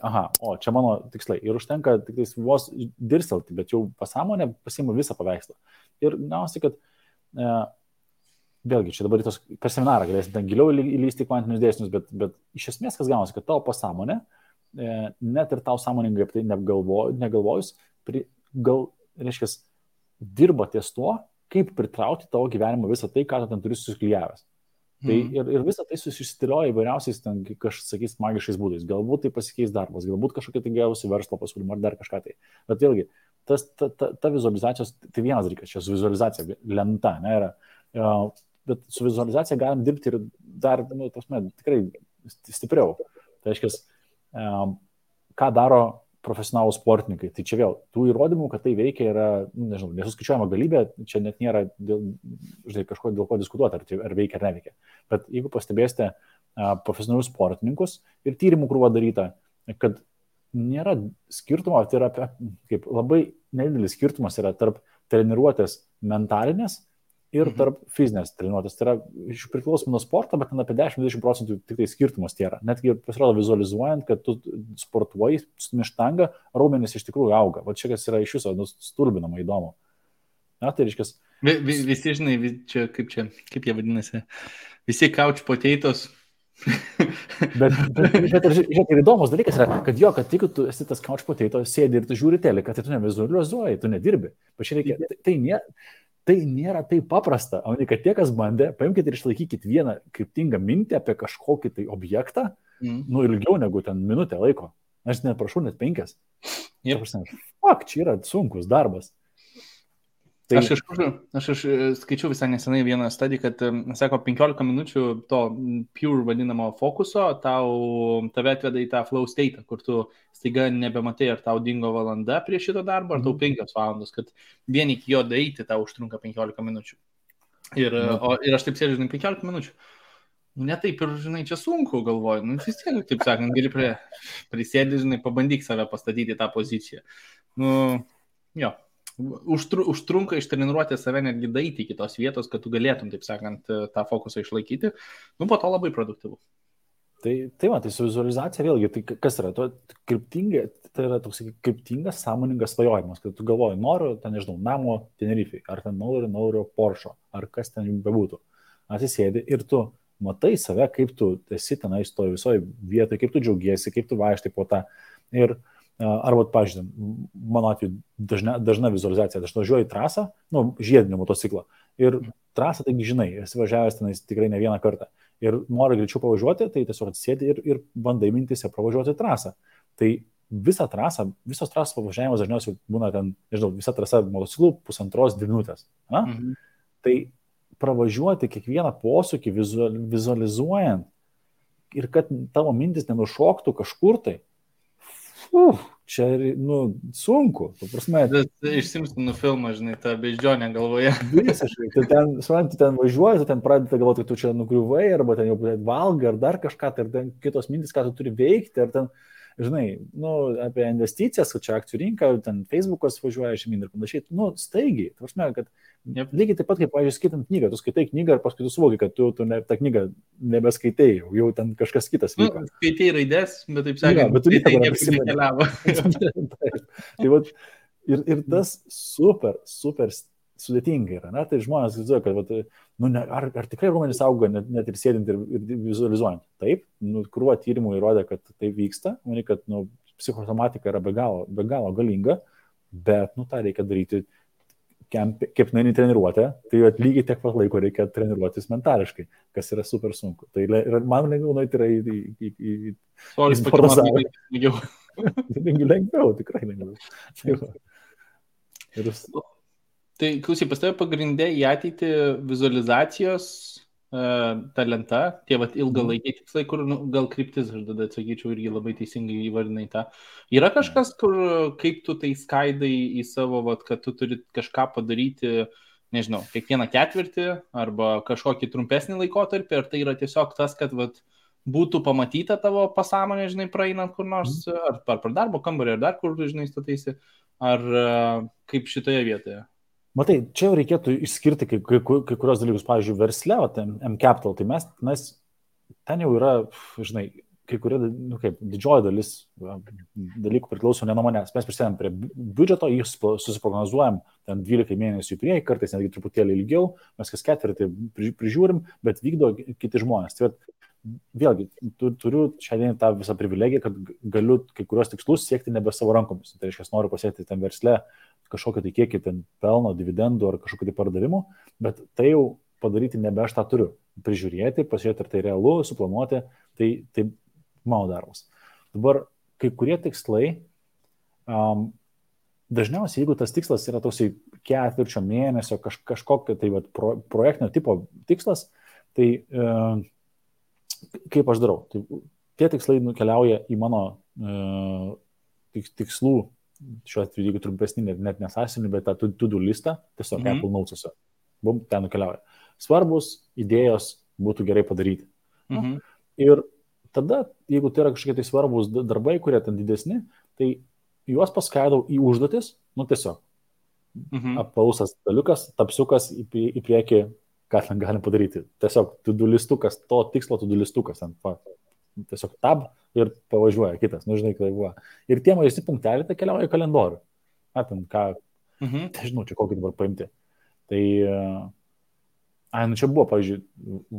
čia mano tikslai. Ir užtenka tik vos dirstelti, bet jau pasąmonė pasiima visą paveikslą. Ir gausi, kad vėlgi, čia dabar per seminarą galėsim ten giliau įlysti kvantinius dėsnius, bet iš esmės kas gaunasi, kad tavo pasąmonė, net ir tau sąmoningai apie tai negalvojus, reiškia, dirba ties tuo, kaip pritraukti tavo gyvenimą visą tai, ką tu ten turi susiklijavęs. Tai ir visą tai susitilioja įvairiausiais, ten, sakys, magiškais būdais. Galbūt tai pasikeis darbas, galbūt kažkokia tai gausi verslo pasiūlymą ar dar kažką tai. Bet vėlgi, ta vizualizacijos, tai vienas dalykas, čia su vizualizacija lenta, ne, yra. Bet su vizualizacija galim dirbti ir dar, tikrai stipriau. Tai reiškia, ką daro profesionalų sportininkai. Tai čia vėl, tų įrodymų, kad tai veikia, yra, nesuskaičiuojama galybė, čia net nėra kažko dėl ko diskutuoti, ar veikia ar neveikia. Bet jeigu pastebėsite profesionalius sportininkus ir tyrimų krūva daryta, kad nėra skirtumo, tai yra kaip labai nedidelis skirtumas yra tarp treniruotės mentalinės ir tarp fizinės treniruotės. Tai yra priklausomai nuo sporto, bet apie 10-20% tik tai skirtumas tai yra. Netgi pasirodo vizualizuojant, kad tu sportuoji, stumi štangą, raumenys iš tikrųjų auga. Va čia kas yra iš viso stulbinama įdomu. Na, tai reiškia. Visi, žinai, kaip jie vadinasi, visi couch potatoes. bet ir įdomus dalykas yra, kad jeigu tu esi tas couch potatoes, sėdi ir tu žiūri teleką, tai tu nevizualizuoji, tu nedirbi. Tai nėra taip paprasta, o ne kad tie, kas bandė, paimkite ir išlaikykite vieną kryptingą mintį apie kažkokį tai objektą, ilgiau negu ten minutę laiko. Aš neprašau, net 5. Čia yra sunkus darbas. Tai... Aš skaičiau visai nesenai vieną studiją, kad, sako, 15 minučių to pure vadinamo fokuso tave atveda į tą flow state, kur tu staiga nebematai, ar tau dingo valanda prie šito darbo, ar tau 5 valandos, kad vien iki jo daeiti tau užtrunka 15 minučių. Ir aš taip sėdžiu, 15 minučių. Ne taip ir, čia sunku galvoju. Vis tiek, taip sakant, gali prisėdį, pabandyk save pastatyti tą poziciją. Užtrunka ištreniruoti save netgi daeiti iki tos vietos, kad tu galėtum, taip sakant, tą fokusą išlaikyti. Po to labai produktyvu. Tai su vizualizacija vėlgi, tai kas yra? Tai yra toks kryptingas, sąmoningas svajojimas, kad tu galvoji, noriu, namo Tenerifei, ar noriu Porsche, ar kas ten bebūtų. Atsisėdi ir tu matai save, kaip tu esi tenai stoji visoje vietoje, kaip tu džiaugiesi, kaip tu vaikštai po tą. Ir arba, pažiūrėjau, mano atveju dažna vizualizacija, aš važiuoju į trasą, žiedinį motociklą. Ir trasą, taigi žinai, esi važiavęs tenais tikrai ne vieną kartą. Ir nori greičiau pavažiuoti, tai tiesiog atsisėdi ir bandai mintise pravažiuoti trasą. Tai visos trasos pavažiavimas dažniausiai būna ten, visa trasa motociklų 1,5-2 minutės. Tai pravažiuoti kiekvieną posūkį vizualizuojant ir kad tavo mintis nenušoktų kažkur tai, čia, sunku. Iš Simpsonų filmą, ta beždžionė galvoje. Visiškai. Tu ten važiuoji, tu ten pradedi galvoti, kad tu čia nugriuvai, arba ten jau valgai, ar dar kažką, ar ten kitos mintis, ką tu turi veikti, ar ten, apie investicijas, kad čia akcijų rinka, ten Facebookas važiuoja žemyn ir panašiai. Staigiai. Kad lygiai taip pat, kaip, pavyzdžiui, skaitant knygą, tu skaitai knygą ir paskui tu suvoki, kad tu tą knygą nebeskaitai, jau ten kažkas kitas vyko. Skaitai raidės, bet taip sakant, bet tu nekeliavo. Ir tas super sudėtinga yra. Tai žmonės galvoja, kad ar tikrai raumenys auga net ir sėdint ir vizualizuojant. Taip, krūva tyrimų įrodė, kad tai vyksta, kad psichosomatika yra be galo galinga, bet tą reikia daryti kepnainį treniruotę, tai lygiai tiek pat laiko reikia treniruotis mentališkai, kas yra super sunku. Tai man lengviau nueiti yra į sportazalą. Lengviau, tikrai lengviau. Tai klausyk, pas tave pagrindė į ateitį vizualizacijos ta lenta, tie vat ilgalaikiai tikslai, kur gal kryptis, aš tada atsakyčiau, irgi labai teisingai įvardinai tą. Yra kažkas, kur kaip tu tai skaidai į savo, vat, kad tu turi kažką padaryti, nežinau, kiekvieną ketvirtį arba kažkokį trumpesnį laikotarpį, ar tai yra tiesiog tas, kad vat, būtų pamatyta tavo pasąmonė, žinai, praeinant kur nors, ar per darbo kambarį, ar dar kur, žinai, stataisi, ar kaip šitoje vietoje? Matai, čia jau reikėtų išskirti kai kurios dalykus, pavyzdžiui, versle, M-Capital, tai mes ten jau yra, žinai, kai kurie, didžioji dalis dalykų priklauso ne nuo manęs. Mes prisidedam prie biudžeto, jį susiprognozuojam ten 12 mėnesių į priekį, kartais netgi truputėlį ilgiau, mes kas ketvirtį prižiūrim, bet vykdo kiti žmonės. Tai vėlgi, turiu šiandien tą visą privilegiją, kad galiu kai kurios tikslus siekti nebe savo rankomis. Tai reiškia, noriu pasiekti ten versle kažkokią tai kiekį ten pelno, dividendų ar kažkokių tai pardavimų, bet tai jau padaryti nebe aš tą turiu. Prižiūrėti, pasižiūrėti, ar tai realu, suplanuoti, tai mano darbas. Dabar kai kurie tikslai, dažniausiai, jeigu tas tikslas yra toksai ketvirčio mėnesio, kažkokio tai projektinio tipo tikslas, tai kaip aš darau? Tai tie tikslai nukeliauja į mano tikslų, šiuo atveju, jeigu trumpesnį, net nesąsinį, bet tą to-do listą, tiesiog Apple Notes'uose. Bum, ten nukeliauja. Svarbus idėjos būtų gerai padaryti. Ir tada, jeigu tai yra kažkokie tai svarbus darbai, kurie ten didesni, tai juos paskaidau į užduotis, tiesiog. Appausas daliukas, tapsiukas į priekį, ką ten galim padaryti. Tiesiog to-do listukas, to tikslo to-do listukas. Tiesiog tab ir pavažiuoja kitas. Žinai, kai buvo. Ir tie mažesni punkteliai tai keliauja į kalendorių. Žinau, čia kokį dabar paimti. Tai, čia buvo, pavyzdžiui,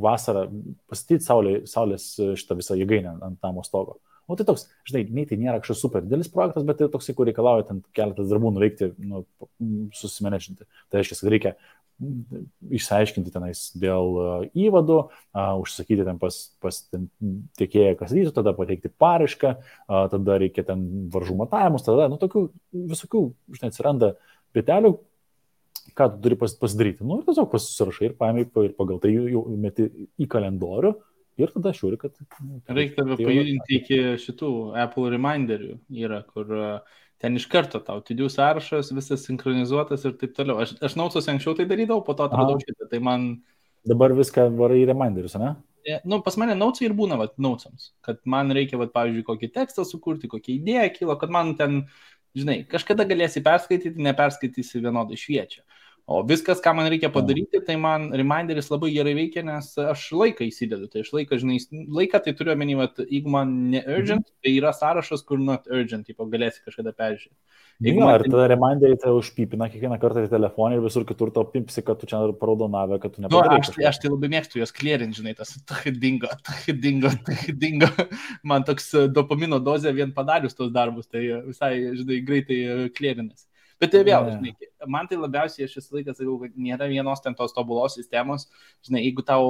vasarą pastatyti saulės šitą visą jėgainę ant namo stogo. O tai toks, žinai, nei tai nėra kažkoks super didelis projektas, bet tai toksai, kur reikalauja ten keletas darbų nuveikti, susimenedžinti. Tai reiškia, kad reikia išsiaiškinti tenais dėl įvadų, užsakyti ten pas tiekėją kasytų, tada pateikti paraišką, tada reikia ten varžų matavimus, tada, tokių visokių, žinai, atsiranda pietelių, ką tu turi pasidaryti. Ir tiesiog pasirašai ir paėmai ir pagal tai jau meti į kalendorių ir tada žiūri, kad... Reikia tave pajudinti iki šitų Apple reminderių, yra, kur... Ten iš karto tau, to-do sąrašas, visas sinchronizuotas ir taip toliau. Aš Notes'uose anksčiau tai darydavau, po to atradau šitą, tai man... Dabar viską varai į reminderius, ne? Pas mane Notes'ai ir būna, Notes'ams, kad man reikia, pavyzdžiui, kokį tekstą sukurti, kokią idėją kilo, kad man ten, žinai, kažkada galėsi perskaityti, neperskaitysi vienodai šviečia. O viskas, ką man reikia padaryti, tai man reminderis labai gerai veikia, nes aš laiką įsidedu. Tai aš laiką tai turiu omeny, jeigu man ne urgent, tai yra sąrašas, kur not urgent, galėsi kažkada peržiūrėti. Ir tada reminderį tai užpipina kiekvieną kartą į telefoną ir visur kitur to pipsi, kad tu čia raudonavę, kad tu nepadarai. Aš tai labai mėgstu juos clearint, žinai, tas dingo. Man toks dopamino dozė vien padarius tos darbus, tai visai, žinai, greitai clearinas. Bet tai vėl, žinai, man tai labiausiai aš visą laiką sakau, kad nėra vienos ten tos tobulos sistemos. Žinai, jeigu tau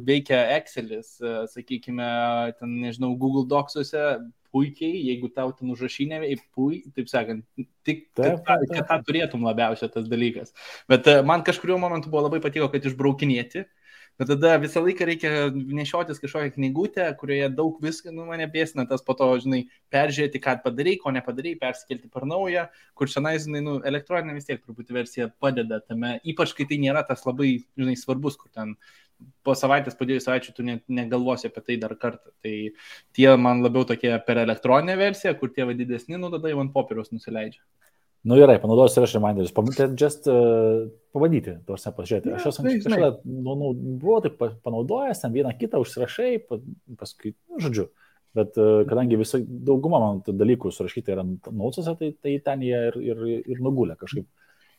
veikia Excelis, sakykime, ten, nežinau, Google Docsuose puikiai, jeigu tau ten užrašinė puikiai, taip sakant, tik kad tą turėtum labiausiai tas dalykas. Bet man kažkuriuo momentu buvo labai patiko, kad išbraukinėti. Bet tada visą laiką reikia nešiotis kažkokią knygutę, kurioje daug visko, mane bėsina tas po to, žinai, peržiūrėti, ką padarai, ko nepadarai, persikelti per naują, kur šiandien, žinai, elektroninė vis tiek truputį versija padeda tame, ypač kai tai nėra tas labai, žinai, svarbus, kur ten po savaitės, po 2 savaičių tu negalvosi apie tai dar kartą. Tai tie man labiau tokie per elektroninę versiją, kur tie didesni, tada jau ant popieriaus nusileidžia. Gerai, panaudosiu ir aš reminderius. Pabandyti, tuose pažiūrėti. Aš esu kažkada, buvau taip panaudojęs, ten vieną kitą užsirašai, paskui, žodžiu. Bet kadangi dauguma man dalykų surašyti yra Notes'uose, tai ten jie ir nugulė kažkaip.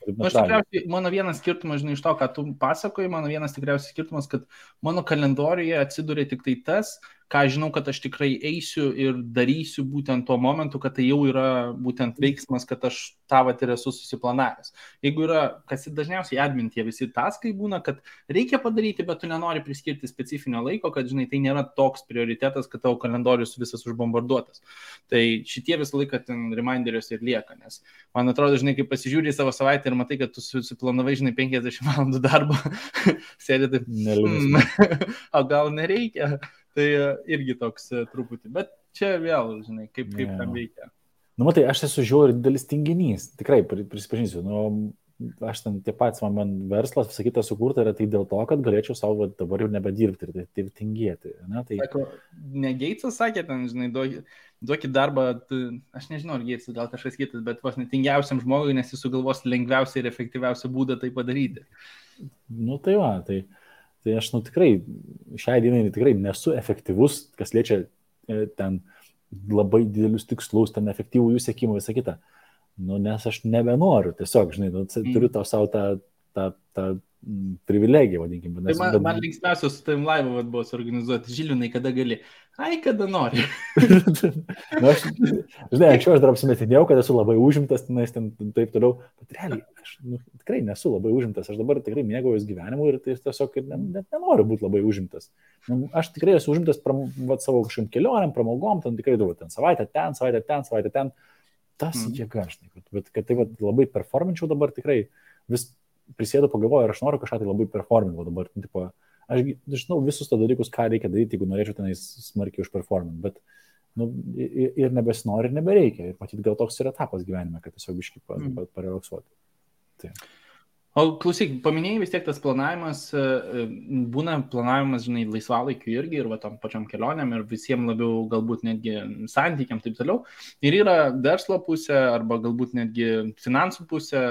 Aš tikriausiai, mano vienas skirtumas, žinai, iš to, ką tu pasakoji, mano vienas tikriausiai skirtumas, kad mano kalendoriuje atsiduria tik tai tas, ką žinau, kad aš tikrai eisiu ir darysiu būtent tuo momentu, kad tai jau yra būtent veiksmas, kad aš tą vat ir esu susiplanavęs. Jeigu yra, kas dažniausiai admintie visi taskai būna, kad reikia padaryti, bet tu nenori priskirti specifinio laiko, kad, žinai, tai nėra toks prioritetas, kad tavo kalendorius visas užbombarduotas. Tai šitie visą laiką ten reminderiuose ir lieka, nes man atrodo, žinai, kai pasižiūri į savo savaitę ir matai, kad tu susiplanavai, žinai, 50 valandų darbo, sėdė taip, o gal nereikia, tai irgi toks truputį, bet čia vėl, žinai, kaip tam veikia. Nu, matai, aš esu žiauriai didelis tinginys, tikrai prisipažinsiu, aš ten tie patys, man verslas, visą kitą sukurta yra tai dėl to, kad galėčiau savo dabar jau nebedirbti ir taip tingėti. Ne? Tai... Sako, ne Geitsas sakė, ten, žinai, duokit darbą, aš nežinau, ar Geitsas, gal kažkas kitas, bet vos netingiausiam žmogui, nes jis sugalvos lengviausią ir efektyviausią būdą tai padaryti. Nu tai va, tai aš tikrai, šiai dienai tikrai nesu efektyvus, kas liečia ten labai didelius tikslus, ten efektyvų jų siekimą, visą kitą. Nu, nes aš nebenoriu, tiesiog, žinai, turiu tau savo tą privilegiją, vadinkime. Tai man linksmiausias su tavim laivą buvo suorganizuoti. Žilvinai, kada gali? Ai, kada nori. Nu, žinai, anksčiau aš dar apsimetinėjau, kad esu labai užimtas, ten taip toliau, bet realiai aš tikrai nesu labai užimtas, aš dabar tikrai mėgaujuos gyvenimu ir tai tiesiog net nenoriu būti labai užimtas. Aš tikrai esu užimtas savo kažkokiam kelionėm, pramogom, ten tikrai daug, ten savaitę ten. Tas jėga, žinai, bet kad tai labai performinčiau dabar tikrai, vis prisėdu pagalvoju ir aš noriu kažką tai labai performinti dabar, tipo, aš žinau visus to dalykus, ką reikia daryti, jeigu norėčiau tenais smarkiai užperforminti, bet ir nebesinori, ir nebereikia, ir matyti gal toks yra etapas gyvenime, kad tiesiog biškai parelaksuoti. Tai. O klausyk, paminėjai vis tiek tas planavimas, būna planavimas, žinai, laisvalaikiu irgi ir va tam pačiam kelionėm ir visiems labiau galbūt netgi santykiam taip toliau. Ir yra verslo pusė arba galbūt netgi finansų pusė,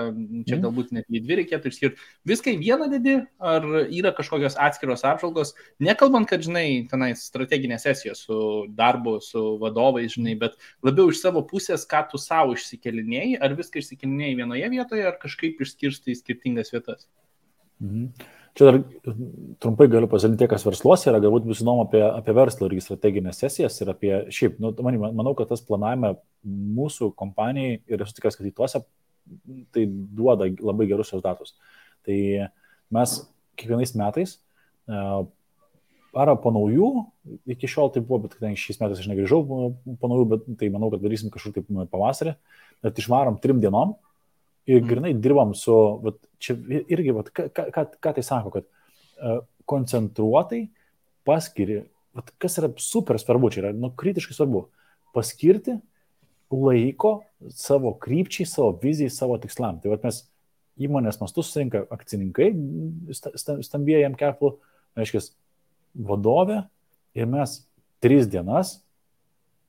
čia galbūt netgi dvi reikėtų išskirti. Viską į vieną dedi, ar yra kažkokios atskiros apžvalgos, nekalbant, kad, žinai, tenais strateginės sesijos su darbu, su vadovais, žinai, bet labiau iš savo pusės, ką tu savo išsikelinėjai, ar viską išsikelinėjai vienoje vietoje, ar kažkaip išskirstai skirtingai vietas. Čia dar trumpai galiu pasidalinti, kas versluose yra, galbūt bus įdomu apie verslo irgi strateginės sesijas ir apie šiaip, manau, kad tas planavime mūsų kompanijai ir esu tikras, kad į tuose tai duoda labai gerus rezultatus. Tai mes kiekvienais metais ar po naujų, iki šiol tai buvo, bet šiais metais aš negrįžau po naujų, bet tai manau, kad darysim kažkur taip pavasarį, bet išvarom 3 dienom. Ir grinai dirbam su, čia irgi, ką tai sako, kad koncentruotai paskiri, kas yra super svarbu, čia yra kritiškai svarbu, paskirti laiko savo krypčiai, savo vizijai, savo tikslam. Tai mes įmonės mastu susirinka akcininkai, stambieji jam keplų, reiškia, vadovė ir mes 3 dienas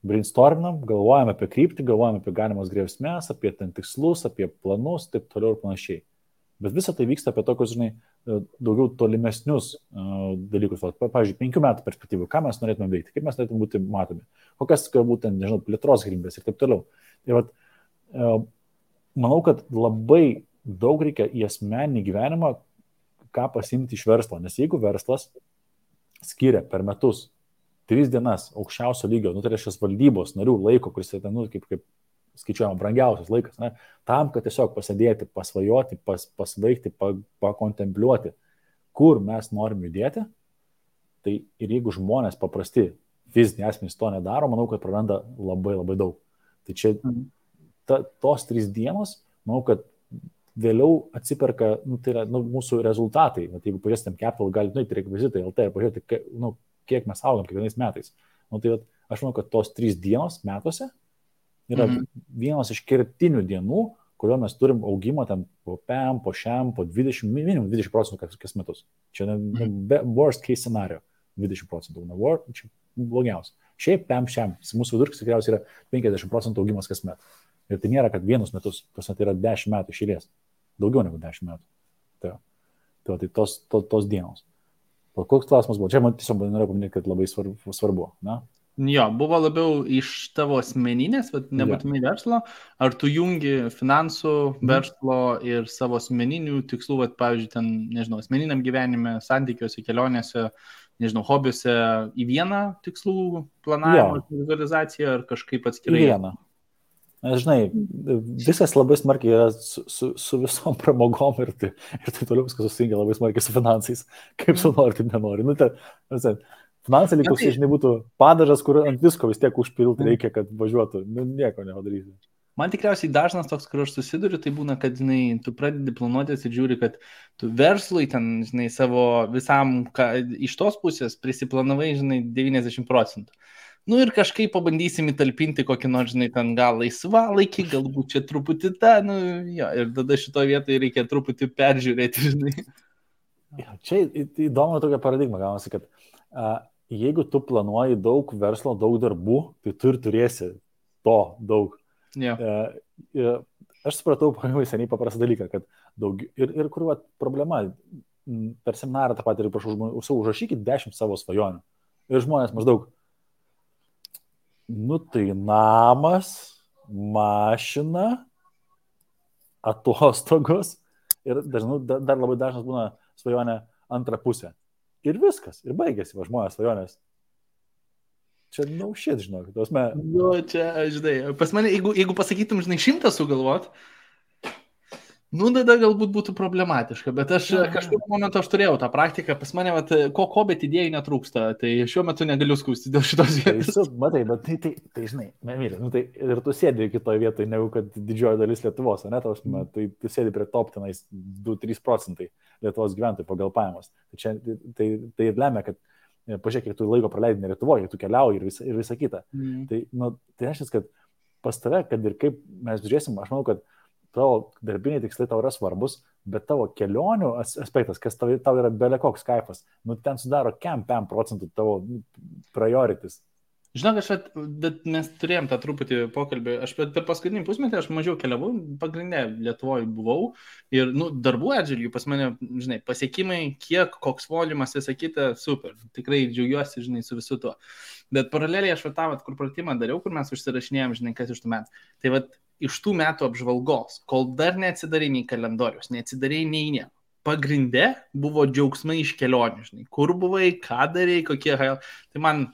brainstorminam, galvojame apie kryptį, galvojame apie galimas grėsmės, apie ten tikslus, apie planus, taip toliau ir panašiai. Bet visą tai vyksta apie tokius, žinai, daugiau tolimesnius dalykus. Pavyzdžiui, 5 metų perspektyvų, ką mes norėtume veikti, kaip mes norėtume būti matomi, kokias galbūt, nežinau, plėtros galimybės ir taip toliau. Ir manau, kad labai daug reikia į asmeninį gyvenimą, ką pasimti iš verslo. Nes jeigu verslas skiria per metus 3 dienas aukščiausio lygio, tai reiškia valdybos narių laiko, kuris yra, kaip skaičiuojama, brangiausias laikas, ne, tam, kad tiesiog pasėdėti, pasvajoti, pasvaigti, pakontempliuoti, kur mes norim judėti, tai ir jeigu žmonės paprasti fiziniai asmenys to nedaro, manau, kad praranda labai labai daug. Tai čia tos 3 dienos, manau, kad vėliau atsiperka, tai yra mūsų rezultatai. Jeigu pažiūrėsim Capital, galite nueiti rekvizitai LT ir pažiūrėti, kiek mes augam kiekvienais metais. Tai aš manau, kad tos 3 dienos metuose yra vienos iš kertinių dienų, kurio mes turim augimą ten po PEM, po šiam, po 20, minimum 20% kas metus. Čia worst case scenario 20%. Čia blogiausia. Šiaip PEM šiam, mūsų vidurkis tikriausiai yra 50% augimas kas met. Ir tai nėra, kad vienus metus, tai yra 10 metų iš eilės. Daugiau negu 10 metų. Tai tos dienos. Koks klausimas buvo? Čia man tiesiog norėjau paminėti, kad labai svarbu. Na? Jo, buvo labiau iš tavo asmeninės, bet nebūtinai verslo. Ar tu jungi finansų, verslo ir savo asmeninių tikslų, pavyzdžiui, ten, nežinau, asmeniniam gyvenime, santykiuose, kelionėse, nežinau, hobiuose į vieną tikslų planavimą, vizualizaciją ar kažkaip atskirai? Į vieną. Žinai, viskas labai smarkiai yra su visom pramogom ir tai toliau viskas susitingia labai smarkiai su finansais. Kaip tu nori, taip nenori. Finansai likusiai, žinai, būtų padažas, kur ant visko vis tiek užpilti reikia, kad važiuotų. Nieko nepadarysi. Man tikriausiai dažnas toks, kur aš susiduriu, tai būna, kad, žinai, tu pradedi planuotis ir žiūri, kad tu verslui ten, žinai, savo visam, iš tos pusės prisiplanavai, žinai, 90%. Nu ir kažkaip pabandysim įtalpinti kokį nors, žinai, ten gal laisvalaikį, galbūt čia truputį ir tada šitoje vietoje reikia truputį peržiūrėti, žinai. Čia įdomu tokia paradigma, gaunasi, kad jeigu tu planuoji daug verslo, daug darbų, tai tu ir turėsi to daug. Aš supratau pakankamai seniai paprastą dalyką, kad daug ir kur problema, per seminarą tą patį ir prašau, užrašykit 10 savo svajonių. Ir žmonės maždaug, tai namas, mašina, atostogos ir dar labai dažnas būna svajonė antrą pusę. Ir viskas, ir baigėsi žmonės svajonės. Čia shit, žinok. Čia, žinai, pas mane, jeigu pasakytum, žinai, 100 sugalvot, tada galbūt būtų problematiška, bet aš kažkaip momentu aš turėjau tą praktiką, pas mane, bet idėjų netrūksta, tai šiuo metu negaliu skųsti dėl šitos vietos. Matai, bet tai žinai, tai ir tu sėdi kitoje vietoje, negu kad didžioji dalis Lietuvos, ne, tai tu sėdi prie top tenais 2-3% Lietuvos gyventojų pagal pajamas. Tai ir lemia, kad pažiūrėk, kiek tu laiko praleidai ne Lietuvoje, tu keliauji ir visa kita. Tai reiškia, kad pas tave, kad ir kaip mes žiūrėsim, aš manau, kad tavo darbiniai tikslai tau yra svarbus, bet tavo kelionių aspektas, kas tau yra belekoks kaifas, ten sudaro 5% tavo priorities. Žinok, bet mes turėjom tą truputį pokalbį, aš per paskutinį pusmetį aš mažiau keliavau, pagrindinė Lietuvoje buvau ir darbų atžvilgių pas mane, žinai, pasiekimai, kiek, koks volumas, visą kitą, super, tikrai džiaugiuosi, žinai, su visu tuo. Bet paraleliai aš kur pratimą dariau, kur mes užsirašinėjom, žinai, kas iš tų metų. Tai iš tų metų apžvalgos, kol dar neatsidarai nei kalendorius, neatsidarai nei nieko. Pagrinde buvo džiaugsmai iš kelionių, žinai, kur buvai, ką darai, kokie, tai man,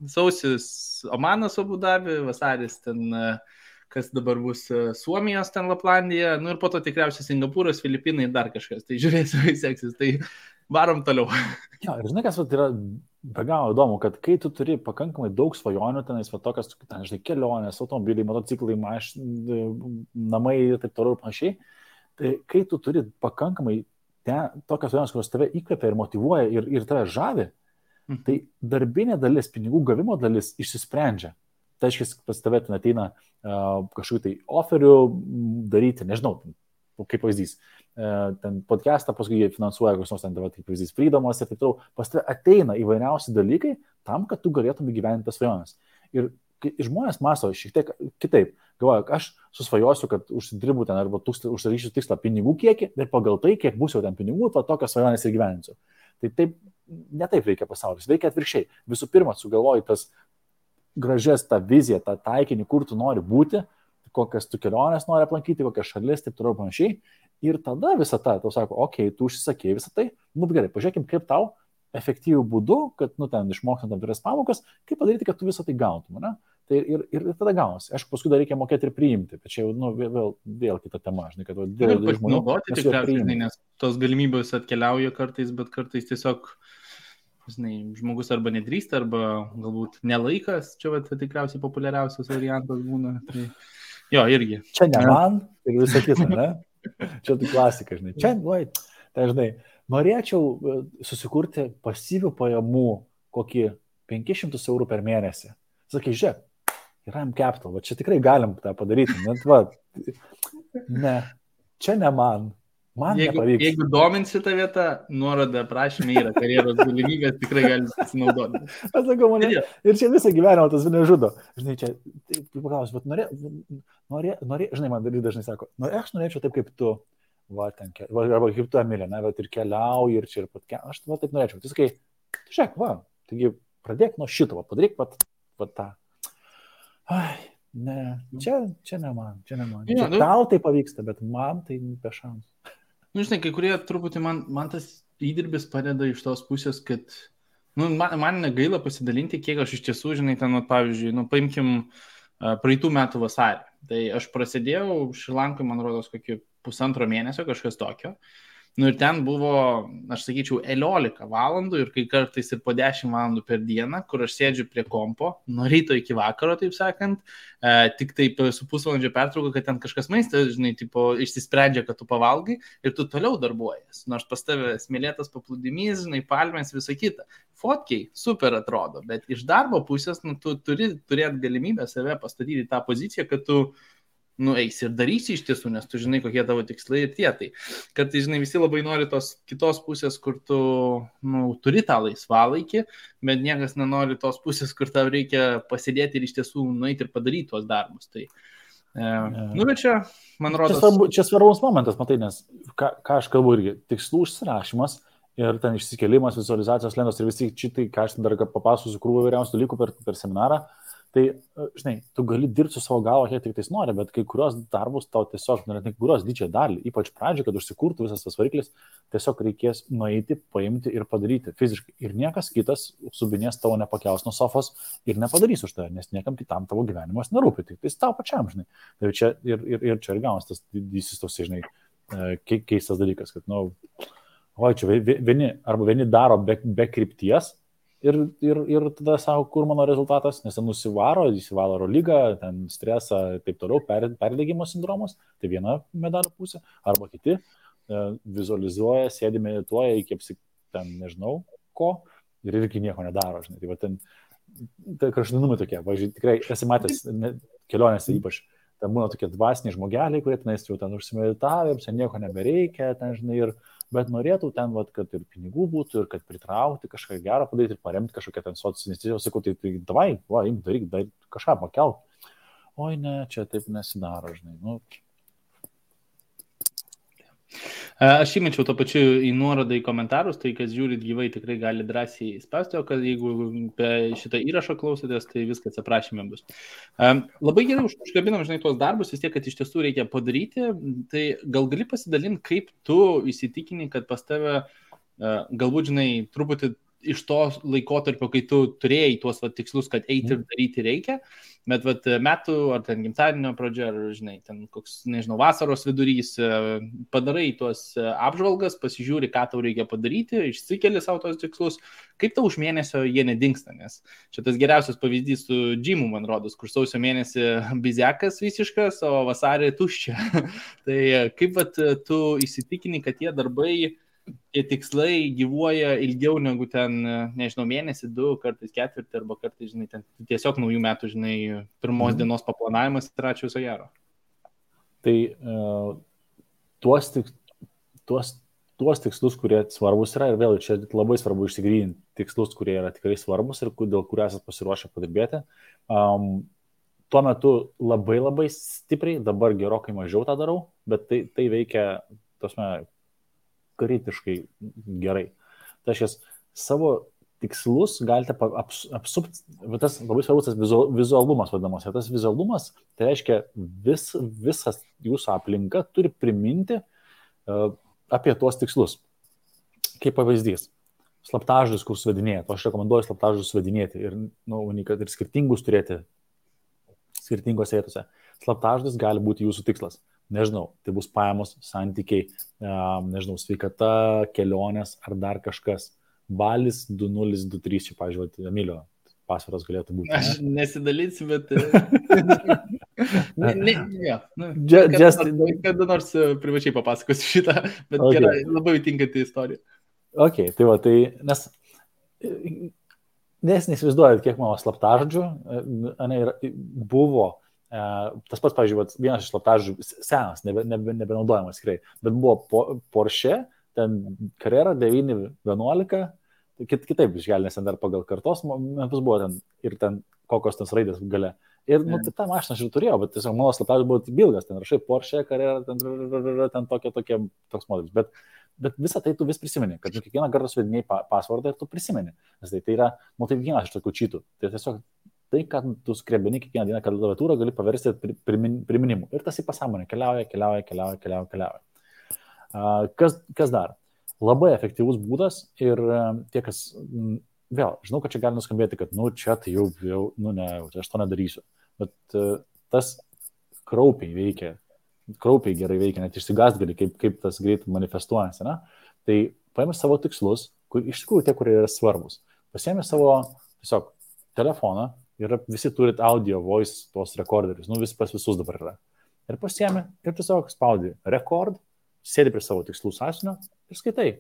sausis Omanas Abu Dabi, vasaris ten, kas dabar bus Suomijos ten Laplandija, ir po to tikriausiai Singapūras, Filipinai ir dar kažkas. Tai žiūrėsiu, kaip seksis, tai varom toliau. Jo, ir žinai, kas yra be galo įdomu, kad kai tu turi pakankamai daug svajonių, tenais tokias, žinai, kelionės, automobiliai, motociklai, namai ir taip toliau ir panašiai, tai kai tu turi pakankamai tokias svajonės, kurios tave įkvepia ir motyvuoja ir tave žavi, tai darbinė dalis, pinigų gavimo dalis išsisprendžia. Tai aiškiai, pas tave ten ateina kažkokių tai oferių daryti, nežinau, kaip pavyzdys, ten podcastą, paskui jie finansuoja kokios nors ten, kaip pavyzdys, Freedomas ir taip toliau, pas tave ateina įvairiausi dalykai tam, kad tu galėtum įgyvendinti tas svajones. Ir žmonės mąsto šiek tiek kitaip. Galvoju, aš susvajosiu, kad užsidirbu ten arba užsidarysiu tikslą pinigų kiekį ir pagal tai, kiek bus jau ten pinigų, tokias svajones ir gyveninsiu. Tai taip, ne taip veikia pasaulis, veikia atvirkščiai. Visų pirma, sugalvoji tas gražias, tą viziją, tą taikinį, kur tu nori būti, kokias tu kelionės nori aplankyti, kokias šalis, taip toliau panašiai. Ir tada visą tą, tau sako, okei, tu užsisakėjai visą tai, gerai, pažiūrėkim, kaip tau efektyvių būdų, kad, ten išmokstant tam tikras pamokas, kaip padaryti, kad tu visą tai gautum, ne? Tai ir tada gaunasi. Aišku, paskui dar reikia mokėti ir priimti, bet čia jau vėl kita tema, žinai, kad dėl žmonių tikriausiai, nes tos galimybės atkeliauja kartais, bet kartais tiesiog, žinai, žmogus arba nedrįsta, arba galbūt nelaikas, čia tikriausiai populiariausias variantas būna. Tai, jo, irgi. Čia ne man ir visą kitą, ne? Čia tai klasika, žinai. Čia, tai žinai, norėčiau susikurti pasyvių pajamų kokį 500 eurų per mėnesį. Sakai, žiūrėk, yra M-Capital, va čia tikrai galim tą padaryti, ne, čia ne man nepavyks. Jeigu dominsi tą vietą, nuoroda prašymė yra karjeros galimybės, tikrai gali pasinaudoti. Aš sakau, mane, ir čia visą gyvenimą tas nežudo. Žinai, čia, paklausiu, bet žinai, man dažnai sako, aš norėčiau taip kaip tu, arba kaip tu, Emilė, bet ir keliauji, ir čia ir pat, aš taip norėčiau. Tai sakai, žiūrėk, taigi pradėk nuo šito, padaryk tą. Ai, ne, čia ne man. Ja, tau tai pavyksta, bet man tai be šansų. Žinai, kai kurie truputį man tas įdirbis padeda iš tos pusės, kad Nu, man negaila pasidalinti, kiek aš iš tiesų, žinai, ten, pavyzdžiui, paimkim praeitų metų vasarį. Tai aš prasidėjau Šrilankai, man rodos, kokį 1,5 mėnesio, kažkas tokio. Nu ir ten buvo, aš sakyčiau, 11 valandų ir kai kartais ir po 10 valandų per dieną, kur aš sėdžiu prie kompo, nuo ryto iki vakaro, taip sakant, tik taip su pusvalandžio pertrauka, kad ten kažkas maistas, žinai, tipo, išsisprendžia, kad tu pavalgai ir tu toliau darbuojas. Nors pas tave smėlėtas paplūdimys, žinai, palmės, visa kita. Fotkiai super atrodo, bet iš darbo pusės, tu turi turėti galimybę save pastatyti į tą poziciją, kad tu eisi ir darysi iš tiesų, nes tu žinai, kokie tavo tikslai ir tie. Tai kartais, žinai, visi labai nori tos kitos pusės, kur tu turi tą laisvalaikį, bet niekas nenori tos pusės, kur tau reikia pasidėti ir iš tiesų nueiti ir padaryti tuos darbus. Tai, bet čia, man rodos... Čia svarbus momentas, matai, nes ką aš kalbu irgi, tikslų užsirašymas ir ten išsikėlimas, vizualizacijos lentos ir visi šitai, ką aš dar papasakosiu krūvą vairiausių dalykų per seminarą. Tai, žinai, tu gali dirbti su savo galva, kiek tik tais nori, bet kai kurios darbus tau tiesiog, kai kurios didžiąją dalį, ypač pradžioje, kad užsikurtų visas tas variklis, tiesiog reikės nueiti, paimti ir padaryti fiziškai. Ir niekas kitas subinės tavo nepakels nuo sofos ir nepadarys už tave, nes niekam kitam tavo gyvenimas nerūpi, tik tai tau pačiam, žinai. Tai čia ir čia ir gaunas tas didysis tos, žinai, keistas dalykas, kad, čia vieni daro be krypties, Ir tada savo, kur mano rezultatas, nes ten įsivalo lygą, ten stresą ir taip toliau, perdegimo sindromas, tai viena medalio pusė, arba kiti vizualizuoja, sėdi, medituoja iki ten nežinau ko ir irgi nieko nedaro, žinai. Tai va ten, tai kraštutinumai tokie, važiuoju, tikrai esi matęs kelionėse ypač, ten būna tokie dvasiniai žmogeliai, kurie tenais jau ten užsimeditavę, ten nieko nebereikia, ten žinai, bet norėtų ten, kad ir pinigų būtų, ir kad pritraukti kažką gerą padaryti ir paremti kažkokią ten socialinę, sakau, tai davai, daryk, kažką pakelk. Oi, ne, čia taip nesidaro, žinai. Aš įmečiau to pačiu į nuorodą į komentarus, tai kas žiūrit gyvai tikrai gali drąsiai spausti, o kad jeigu šitą įrašą klausotės, tai viskas aprašyme bus. Labai gerai užkabinam, žinai, tuos darbus, vis tiek, kad iš tiesų reikia padaryti, tai gal gali pasidalinti, kaip tu įsitikini, kad pas tave galbūt, žinai, truputį iš to laikotarpio, kai tu turėjai tuos tikslus, kad eiti ir daryti reikia, bet metų ar ten gimtadienio pradžia, ar, žinai, ten koks, nežinau, vasaros vidurys, padarai tuos apžvalgas, pasižiūri, ką tau reikia padaryti, išsikeli savo tos tikslus, kaip tau už mėnesio jie nedingsta, nes čia tas geriausias pavyzdys su džimu, man rodos, kur sausio mėnesį bizekas visiškas, o vasarį tuščia. Tai kaip tu įsitikini, kad tie darbai, tie tikslai gyvuoja ilgiau negu ten, nežinau, mėnesį, 2, kartais ketvirtį, arba kartais, žinai, ten tiesiog naujų metų, žinai, pirmos dienos paplanavimas ir ačiū viso gero. Tai tuos tikslus, kurie svarbus yra, ir vėl čia labai svarbu išsigryninti tikslus, kurie yra tikrai svarbus ir dėl kurių esate pasiruošę padirbėti. Tuo metu labai labai stipriai, dabar gerokai mažiau tą darau, bet tai veikia, kritiškai gerai. Tai aš savo tikslus galite apsupti, tas labai svarbus tas vizualumas vadinamas. Ir tas vizualumas, tai reiškia visas jūsų aplinka turi priminti apie tuos tikslus. Kaip pavyzdys, slaptažodžius, kur suvedinėjate. Aš rekomenduoju slaptažodžius suvedinėti ir, kad ir skirtingus turėti skirtingose vietose. Slaptažodis gali būti jūsų tikslas. Nežinau, tai bus pajamos, santykiai, nežinau, sveikata, kelionės ar dar kažkas. Balis 2023, čia, pavyzdžiui, Emilio pasvaras galėtų būti. Aš nesidalysiu, bet... Kada nors privačiai papasakosiu šitą, bet gerai, labai tinkanti istorija. Ok, tai va, nes neįsivaizduojat, kiek mano slaptažodžių buvo. Tas pats, pavyzdžiui, vienas iš slaptažodžių senas, nebenaudojamas tikrai, bet buvo Porsche, ten Carrera 911, kitaip išgali, nes ten dar pagal kartos metus buvo ten ir ten kokios ten raidės gale. Ir tą mašiną aš ir turėjau, bet tiesiog mano slaptažodis buvo bilgas, ten rašai Porsche, Carrera, ten toks modelis. Bet visą tai tu vis prisimeni, kad kiekvieną kartą suvedinėjai pasvardą ir tu prisimeni. Nes tai yra, tai vienas iš tokių čytų. Tai tiesiog tai, kad tu skrebini kiekvieną dieną klaviatūrą, gali paversti priminimu. Ir tas į pasąmonę keliauja. Kas dar? Labai efektyvus būdas ir tie, kas vėl, žinau, kad čia gali nuskambėti, kad, čia tai jau ne, aš to nedarysiu. Bet tas kraupiai veikia, kraupiai gerai veikia, net išsigąst gali, kaip tas greit manifestuojasi, ne? Tai paėmė savo tikslus, kur iš tikrųjų tie, kurie yra svarbus. Pasiėmė savo tiesiog telefoną ir visi turit audio, voice, tuos rekorderius, vis pas visus dabar yra. Ir pasiėmė ir tiesiog spaudi rekord, sėdi prie savo tikslų sąsiunio ir skaitai.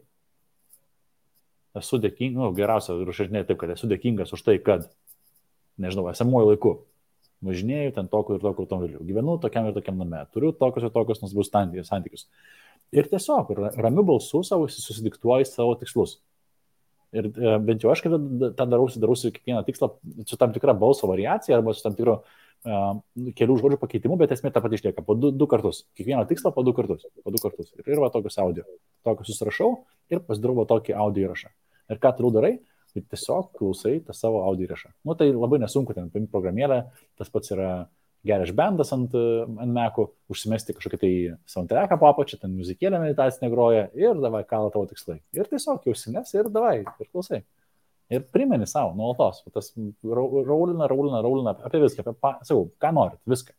Esu dėkingas, geriausia užrašinėti taip, kad esu dėkingas už tai, kad, nežinau, esamuoju laiku važinėjau ten tokiu ir tokiu automobiliu, gyvenu tokiam ir tokiam name, turiu tokius ir tokius nuostabius santykius. Ir tiesiog ramiu balsu savo susidiktuoji savo tikslus. Ir bent jau aš, kai tą darausi kiekvieną tikslą su tam tikra balso variacija arba su tam tikro kelių žodžių pakeitimu, bet esmė tą patį išlieka po du kartus. Kiekvieną tikslą po du kartus. Ir va tokius audio. Tokius susirašau ir pasidarau tokį audio įrašą. Ir ką toliau darai? Tai tiesiog klausai tą savo audio įrašą. Tai labai nesunku, ten paimti programėlę, tas pats yra GarageBandas ant Mac'ų, užsimesti kažkokį tai soundtracką po apačią, ten muzikėlę meditacinę groja ir davai kala tavo tikslai. Ir tiesiog jau užsimesi ir davai, ir klausai. Ir primeni savo nuolatos. Tas raulina apie viską, sakau, ką norit, viską.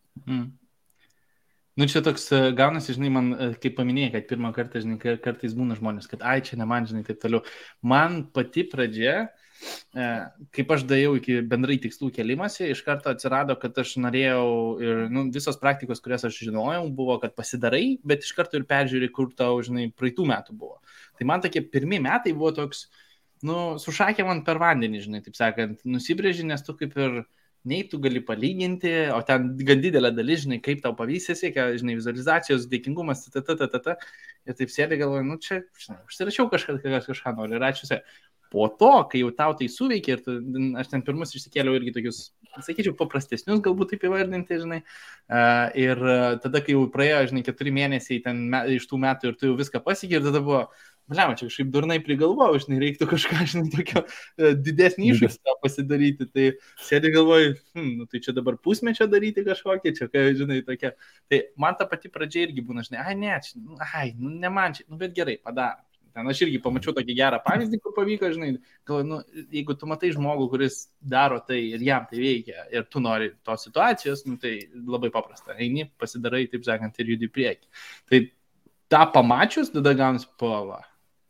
Čia toks gaunasi, žinai, man, kaip paminėjai, kad pirmą kartą, žinai, kartais būna žmonės, kad čia ne man, žinai, taip toliau. Man pati pradžia, kaip aš dėjau iki bendrai tikslų kelimasi, iš karto atsirado, kad aš norėjau ir visos praktikos, kurias aš žinojau, buvo, kad pasidarai, bet iš karto ir peržiūri, kur tau, žinai, praeitų metų buvo. Tai man tokie pirmi metai buvo toks, sušakė man per vandenį, žinai, taip sakant, nusibrėži, nes tu kaip ir nei tu gali palyginti, o ten gan didelė dalis, žinai, kaip tau pavyzdys, žinai, vizualizacijos, dėkingumas, ir taip sėdė galvoju, čia, žinai, užsirašiau kažką noriu ir ačiū. Po to, kai jau tau tai suveikia, ir aš ten pirmus išsikėliau irgi tokius, sakyčiau, paprastesnius, galbūt taip įvardinti, žinai, ir tada, kai jau praėjo, žinai, 4 mėnesiai ten iš tų metų ir tu jau viską pasiekei, ir tada buvo, čia kažkaip durnai prigalvojau, žinai, reiktų kažką, žinai, tokio didesnį iššūkį pasidaryti, tai sėdė galvoju, tai čia dabar pusmečio daryti kažkokį, čia, žinai, tokia, tai man ta pati pradžia irgi būna, žinai, ne man čia, bet gerai, padarom. Ten aš irgi pamačiau tokį gerą pavyzdį, kur pavyko, žinai, galvoju, jeigu tu matai žmogų, kuris daro tai ir jam tai veikia, ir tu nori tos situacijos, tai labai paprasta, eini, pasidarai, taip sakant, ir judi prieki. Tai tą pamačius, tada gaunasi pova.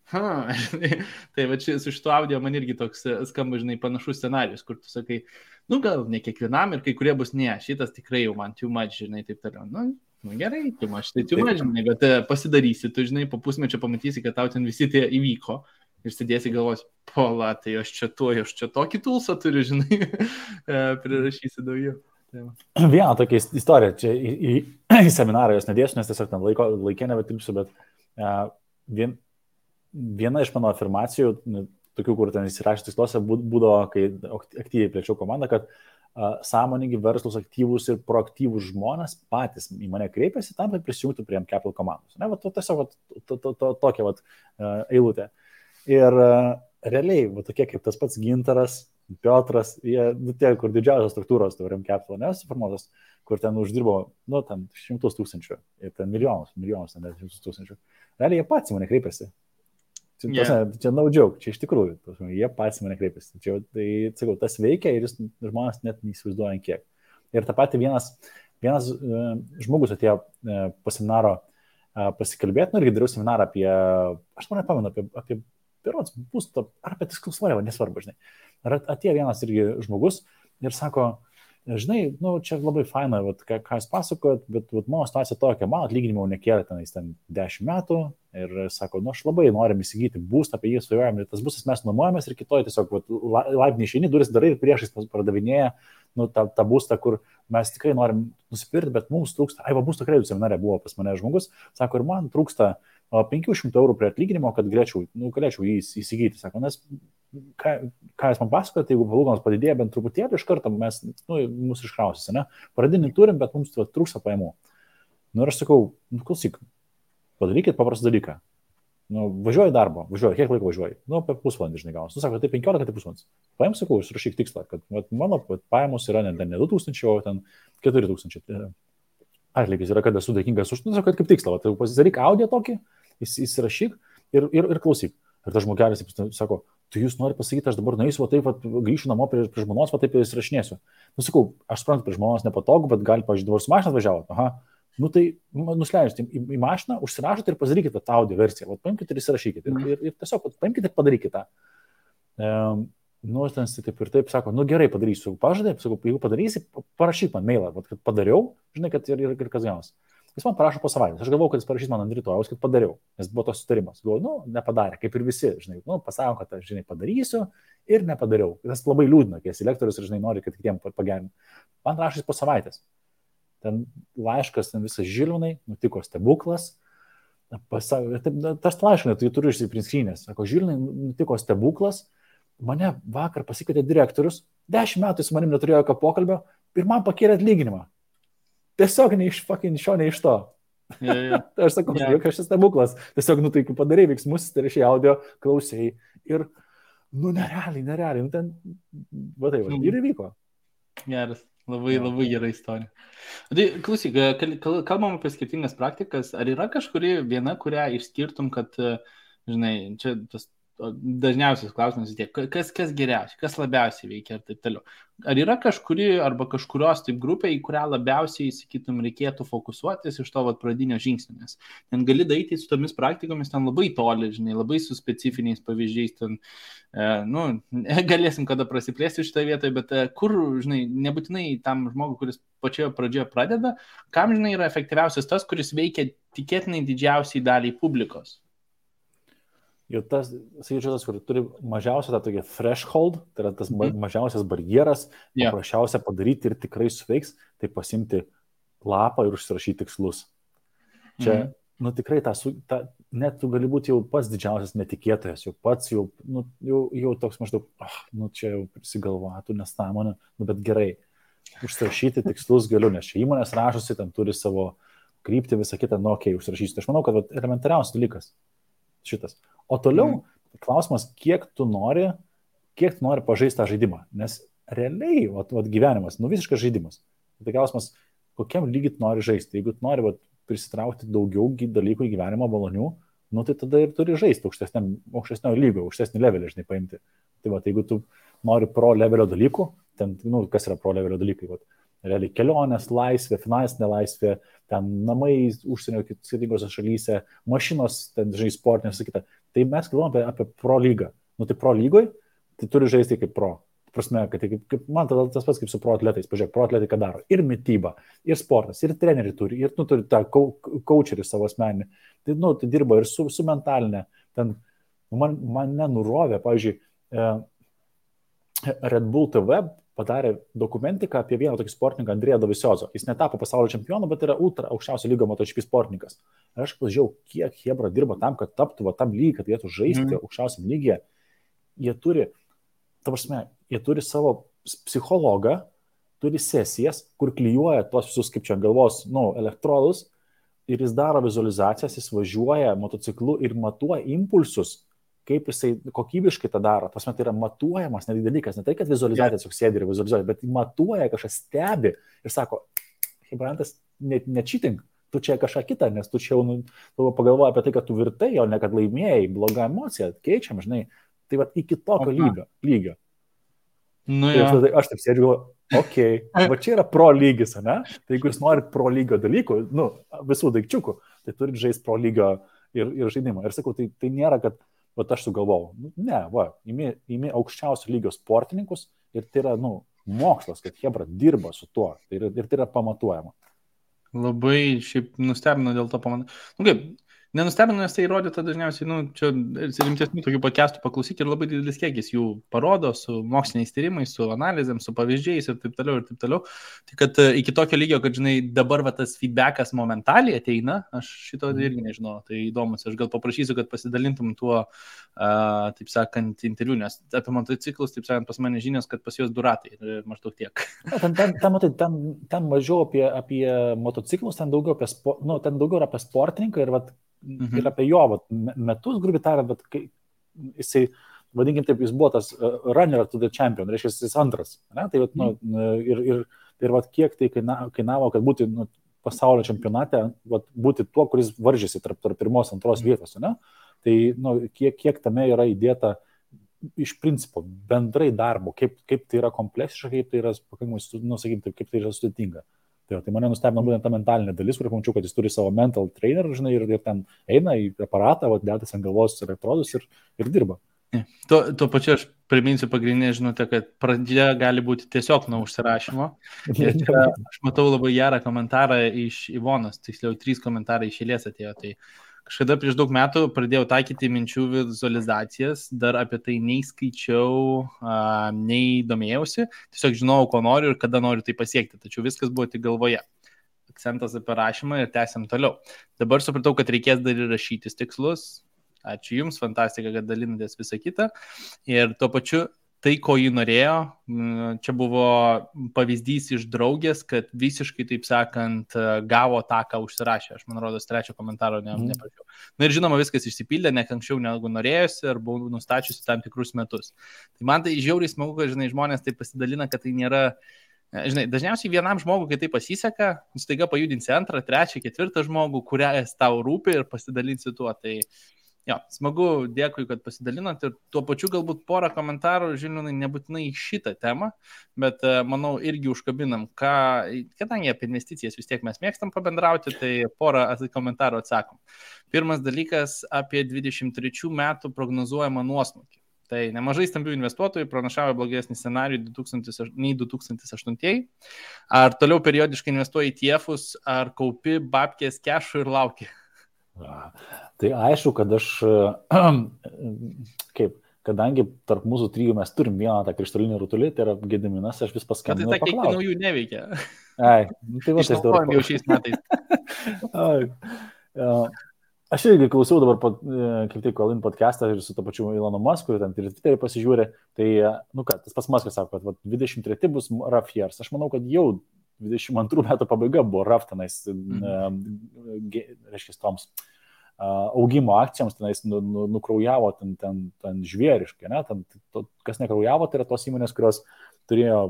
Tai va čia su šituo audio man irgi toks skamba, žinai, panašus scenarius, kur tu sakai, gal ne kiekvienam ir kai kurie bus ne, šitas tikrai jau man too much, žinai, taip toliau. Gerai, too much, žinai, bet pasidarysi, tu, žinai, po pusmečio pamatysi, kad tau ten visi tie įvyko ir sėdėsi galvos, pola, tai aš čia tokį tulsą turiu, žinai, prirašysi daugiau. Vieną tokia istorija, čia į seminarą jos nedėsiu, nes tiesiog ten laikė nebetilpsiu, bet viena iš mano afirmacijų, tokių, kur ten įsirašė tiksluose, būdavo, kai aktyviai plėčiau komandą, kad sąmoningi, verslus, aktyvūs ir proaktyvūs žmonės patys į mane kreipiasi tam, kad prisijungtų prie M-Capital komandos. Tiesiog tokia eilutė. Ir realiai, tokie kaip tas pats Gintaras, Piotras, jie, kur didžiausios struktūros M-Capital nesuformuotos, kur ten uždirbo, ten 100 000 ir ten milijonus, ten 100 000. Realiai jie patys į mane kreipiasi. Čia no joke, čia iš tikrųjų, jie patys mane kreipiasi. Tai, sakau, tas veikia ir žmonės net neįsivaizduoja kiek. Ir tą patį vienas žmogus atėjo po seminaro pasikalbėti, irgi dariau seminarą apie, aš man nepamenu, apie berods būstą, ar apie tikslus svariavą, nesvarbu, žinai. Ar atėjo vienas irgi žmogus ir sako, žinai, čia labai faina, ką jūs pasakojat, bet mano situacija tokia, mano atlyginimo nekėlė ten 10 metų ir sako, aš labai norim įsigyti būstą, apie jį svajojam, ir tas būstas mes nuomojamės ir kitoj tiesiog laiptinėj išeini, duris darai ir priešais pardavinėja tą būstą, kur mes tikrai norim nusipirkti, bet mums trūksta, būsto kreditų seminare buvo pas mane žmogus, sako, ir man trūksta 500 eurų prie atlyginimo, kad galėčiau jį įsigyti. Sako, nes ką jūs man pasakojate, jeigu palūkanos padidėja bent truputėlį, iš karto mes, mūsų iškrausys, ne? Pradinį turim, bet mums trūksta pajamų. Ir aš sakau, klausyk, padarykit paprastą dalyką. Važiuoju į darbą, kiek laiko važiuoju? Apie pusvalandį, žinai, gaunas. Sako, tai 15, tai pusvalandis. Paim, sakau, užrašyk tikslą, kad mano pajamos yra ne 2000, o ten 4000. Atlygis yra, kad esu dėkingas už, kad kaip tikslą, pasidaryk audio tokį, įsirašyk ir klausyk. Ir tas žmogelis sako, tai jūs norite pasakyti, aš dabar nueisiu, taip, grįšiu namo prie žmonos, taip įsirašinėsiu. Nu, sakau, aš suprantu, prie žmonos nepatogu, bet gali, pažiūrėjau, dabar su mašina atvažiavo. Aha. Nu, tai nusileidžiate į mašiną, užsirašote ir pasidarykite tą audio versiją. Paimkite ir įsirašykite. Ir tiesiog paimkite ir padarykite tą. Nu, ten taip ir taip sako, nu gerai padarysiu. Pažadė, sakau, jeigu padarysi, parašyk man mailą, kad padariau, žinai, kad ir kas gaunas. Jis man parašo po savaitės. Aš galvojau, kad jis parašys man ant rytojaus, kad padariau, nes buvo tos sutarimas. Galvoju, nu, nepadarė, kaip ir visi, žinai, nu, pasako, kad aš, žinai, padarysiu ir nepadariau. Tas labai liūdna, kai esi lektorius ir, žinai, nori, kad kitiem pagerinti. Man rašys po savaitės. Ten laiškas, ten visas Žilvinai, nutiko stebuklas. Tas laiškas, tai turiu išsiprinskrinės. Sako, Žilvinai, nutiko stebuklas. Mane vakar pasikvietė direktorius, 10 metų su manim neturėjo jokio pokalbio ir man pakėlė atlyginimą. Tiesiog ne iš šio, ne iš to. Yeah. Tai aš sakau, jokas šis stebuklas. Tiesiog, nu tai padarai veiksmus, tai reiškia audio, klausėjai ir, nu nerealiai, nu ten, va tai, ir įvyko. Geras, labai gera istorija. Tai klausyk, kalbam apie skirtingas praktikas, ar yra kažkuri viena, kurią išskirtum, kad, žinai, čia tas dažniausias klausimas vis tiek, kas geriausiai, kas labiausiai veikia ir taip toliau. Ar yra kažkuri arba kažkurios taip grupė, į kurią labiausiai, sakytum, reikėtų fokusuotis iš to pradinio žingsnio, nes ten gali daryti su tomis praktikomis ten labai toli, žinai, labai su specifiniais pavyzdžiais, ten, nu, galėsim kada prasiplėsti šitoje vietoje, bet kur, žinai, nebūtinai tam žmogui, kuris pačioje pradžioje pradeda, kam, žinai, yra efektyviausias tas, kuris veikia tikėtinai didžiausiai daliai publikos. Ir tas, sakyčiau, tas, kur turi mažiausią tą tokį threshold, tai yra tas mažiausias barjeras, paprasčiausia padaryti ir tikrai suveiks, tai pasimti lapą ir užsirašyti tikslus. Čia, nu tikrai, net tu gali būti jau pats didžiausias netikėtojas, jau pats, jau toks maždaug, nu čia jau prisigalvoja, tu nesąmonė, nu bet gerai, užsirašyti tikslus galiu, nes čia įmonės rašosi, ten turi savo kryptį, visą kitą, nu okei, užsirašysiu. Tai aš manau, kad elementariausias dalykas šitas. O toliau klausimas, kiek tu nori pažaisti tą žaidimą. Nes realiai, gyvenimas, nu visiškas žaidimas. Tai klausimas, kokiam lygiai tu nori žaisti. Jeigu tu nori prisitraukti daugiau dalykų į gyvenimą malonių, nu tai tada ir turi žaisti aukštesnio lygio, aukštesnį levelį, žinai, paimti. Tai jeigu tu nori pro levelio dalykų, ten, nu, kas yra pro levelio dalykai, realiai kelionės, laisvė, finansinė laisvė, ten namai užsienio skirtingose šalyse, mašinos, ten, žinai, sportinės, sakyta. Tai mes kalbame apie pro lygą. Nu, tai pro lygoj, tai turi žaisti kaip pro. Prasme, kad man tada tas pats kaip su pro atletais. Pažiūrėk, pro atletai ką daro. Ir mityba, ir sportas, ir treneriai turi, ir tu turi tą coacherį savo asmeninį. Tai, nu, tai dirba ir su mentalinė. Ten mane nurovė, pavyzdžiui, Red Bull TV padarė dokumentiką apie vieną tokį sportininką, Andrėją Doviziozo. Jis netapo pasaulio čempionu, bet yra ultra aukščiausio lygio MotoGP sportininkas. Ir aš pažiūrėjau, kiek Hebra dirba tam, kad taptų tam lygiai, kad jie žaisti aukščiausiam lygyje. Jie turi savo psichologą, turi sesijas, kur klijuoja tuos visus, kaip čia galvos, elektrodus, ir jis daro vizualizacijas, jis važiuoja motociklu ir matuoja impulsus, kaip jisai kokybiškai tą daro. Pasme, tai yra matuojamas netgi dalykas, ne tai, kad vizualizacija tiesiog sėdi ir vizualizuoja, bet matuoja, kažkas stebi ir sako, Hebrantas, ne cheating, tu čia kažką kitą, nes tu čia jau pagalvoji apie tai, kad tu virtai, o ne kad laimėjai, bloga emocija, keičiam, žinai, tai iki tokio lygio. Nu, tai aš taip sėdžiu, okei, va čia yra pro lygis, ne? Tai jeigu jūs norit pro lygio dalykų, visų daikčiukų, tai turit žaisti pro lygio ir žaidimą. Ir sakau, tai nėra, kad aš sugalvojau. Ne, imi aukščiausio lygio sportininkus ir tai yra, mokslas, kad Hebra dirba su tuo ir tai yra pamatuojama. Labai šiaip nustebino dėl to kaip, nenustebino, nes tai įrodyta dažniausiai, čia rimtesnių tokių podcastų paklausyti ir labai didelis kiekis jų parodo su moksliniais tyrimais, su analizėm, su pavyzdžiais ir taip toliau. Tai kad iki tokio lygio, kad, žinai, dabar tas feedbackas momentaliai ateina, aš šito irgi nežinau, tai įdomus, aš gal paprašysiu, kad pasidalintum tuo, taip sakant, interviu, nes apie motociklus, taip sakant, pas mane žinios, kad pas juos du ratai ir maždaug tiek. Ten mažiau apie motociklus, ten daugiau apie sportininką ir ir apie jo metus, grubiai tariant, bet jisai, vadinkim taip, jis buvo tas runner to the champion, reiškia, jis antras. Ne? Tai, ir kiek tai kainavo, kad būti pasaulio čempionate, būti tuo, kuris varžėsi tarp pirmos, antros vietos. Ne? Tai kiek tame yra įdėta iš principo bendrai darbo, kaip tai yra kompleksiška, kaip tai yra pakankamai, sakyti, kaip tai yra sudėtinga. Tai mane nustebino būtent ta mentalinė dalis, kur pamačiau, kad jis turi savo mental trainer, žinai, ir ten eina į aparatą, dėtas ant galvos elektrodus ir dirba. Tuo pačiu aš priminsiu pagrindinę žinutę, kad pradžia gali būti tiesiog nuo užsirašymo. Ir čia aš matau labai gerą komentarą iš Ivonos, tiksliau 3 komentarai iš eilės atėjo. Tai kažkada prieš daug metų pradėjau taikyti minčių vizualizacijas, dar apie tai nei skaičiau, nei domėjausi, tiesiog žinojau, ko noriu ir kada noriu tai pasiekti, tačiau viskas buvo tik galvoje. Akcentas apie rašymą ir tęsiam toliau. Dabar supratau, kad reikės dar ir rašytis tikslus. Ačiū Jums, fantastika, kad dalinatės visą kitą. Ir tuo pačiu tai, ko jį norėjo, čia buvo pavyzdys iš draugės, kad visiškai, taip sakant, gavo tą, ką užsirašė. Aš, man rodos, 3 komentaro neprašiau. Na ir žinoma, viskas išsipildė, ne anksčiau negu norėjusi, ar buvau nustačiusi tam tikrus metus. Tai man tai žiauriai smagu, kad, žinai, žmonės taip pasidalina, kad tai nėra... Žinai, dažniausiai vienam žmogui, kai tai pasiseka, staiga pajudinsi 2, 3, 4 žmogų, kurias tau rūpi ir pasidalinsi tuo. Tai jo, smagu, dėkui, kad pasidalinat ir tuo pačiu galbūt porą komentarų, žinoma, nebūtinai šitą temą, bet manau irgi užkabinam, kadangi apie investicijas vis tiek mes mėgstam pabendrauti, tai porą komentarų atsakom. Pirmas dalykas apie 23 metų prognozuojamą nuosmukį. Tai nemažai stambių investuotojų pranašavo blogesnį scenarijų nei 2008. Ar toliau periodiškai investuoji į TIEFus, ar kaupi babkės kešų ir lauki? Tai aišku, kad aš, kadangi tarp mūsų 3 mes turim vieną tą krištolinį rutulį, tai yra Gediminas, aš vis paskambinau. Tai ta kiek naujų neveikia. Tai va, išnaudojam jau šiais metais. Aš irgi klausiau dabar, kaip tik, Colin podcastą ir su to pačiu Elonu Musku, ten ir Twitter'į pasižiūrė, tai, tas pats Muskas sako, kad 23 bus rough years. Aš manau, kad jau 22 metų pabaiga buvo rough tenais, reiškia, toms augimo akcijoms tenais nukraujavo ten žvėriškai, ne? Kas nekraujavo, tai yra tos įmonės, kurios turėjo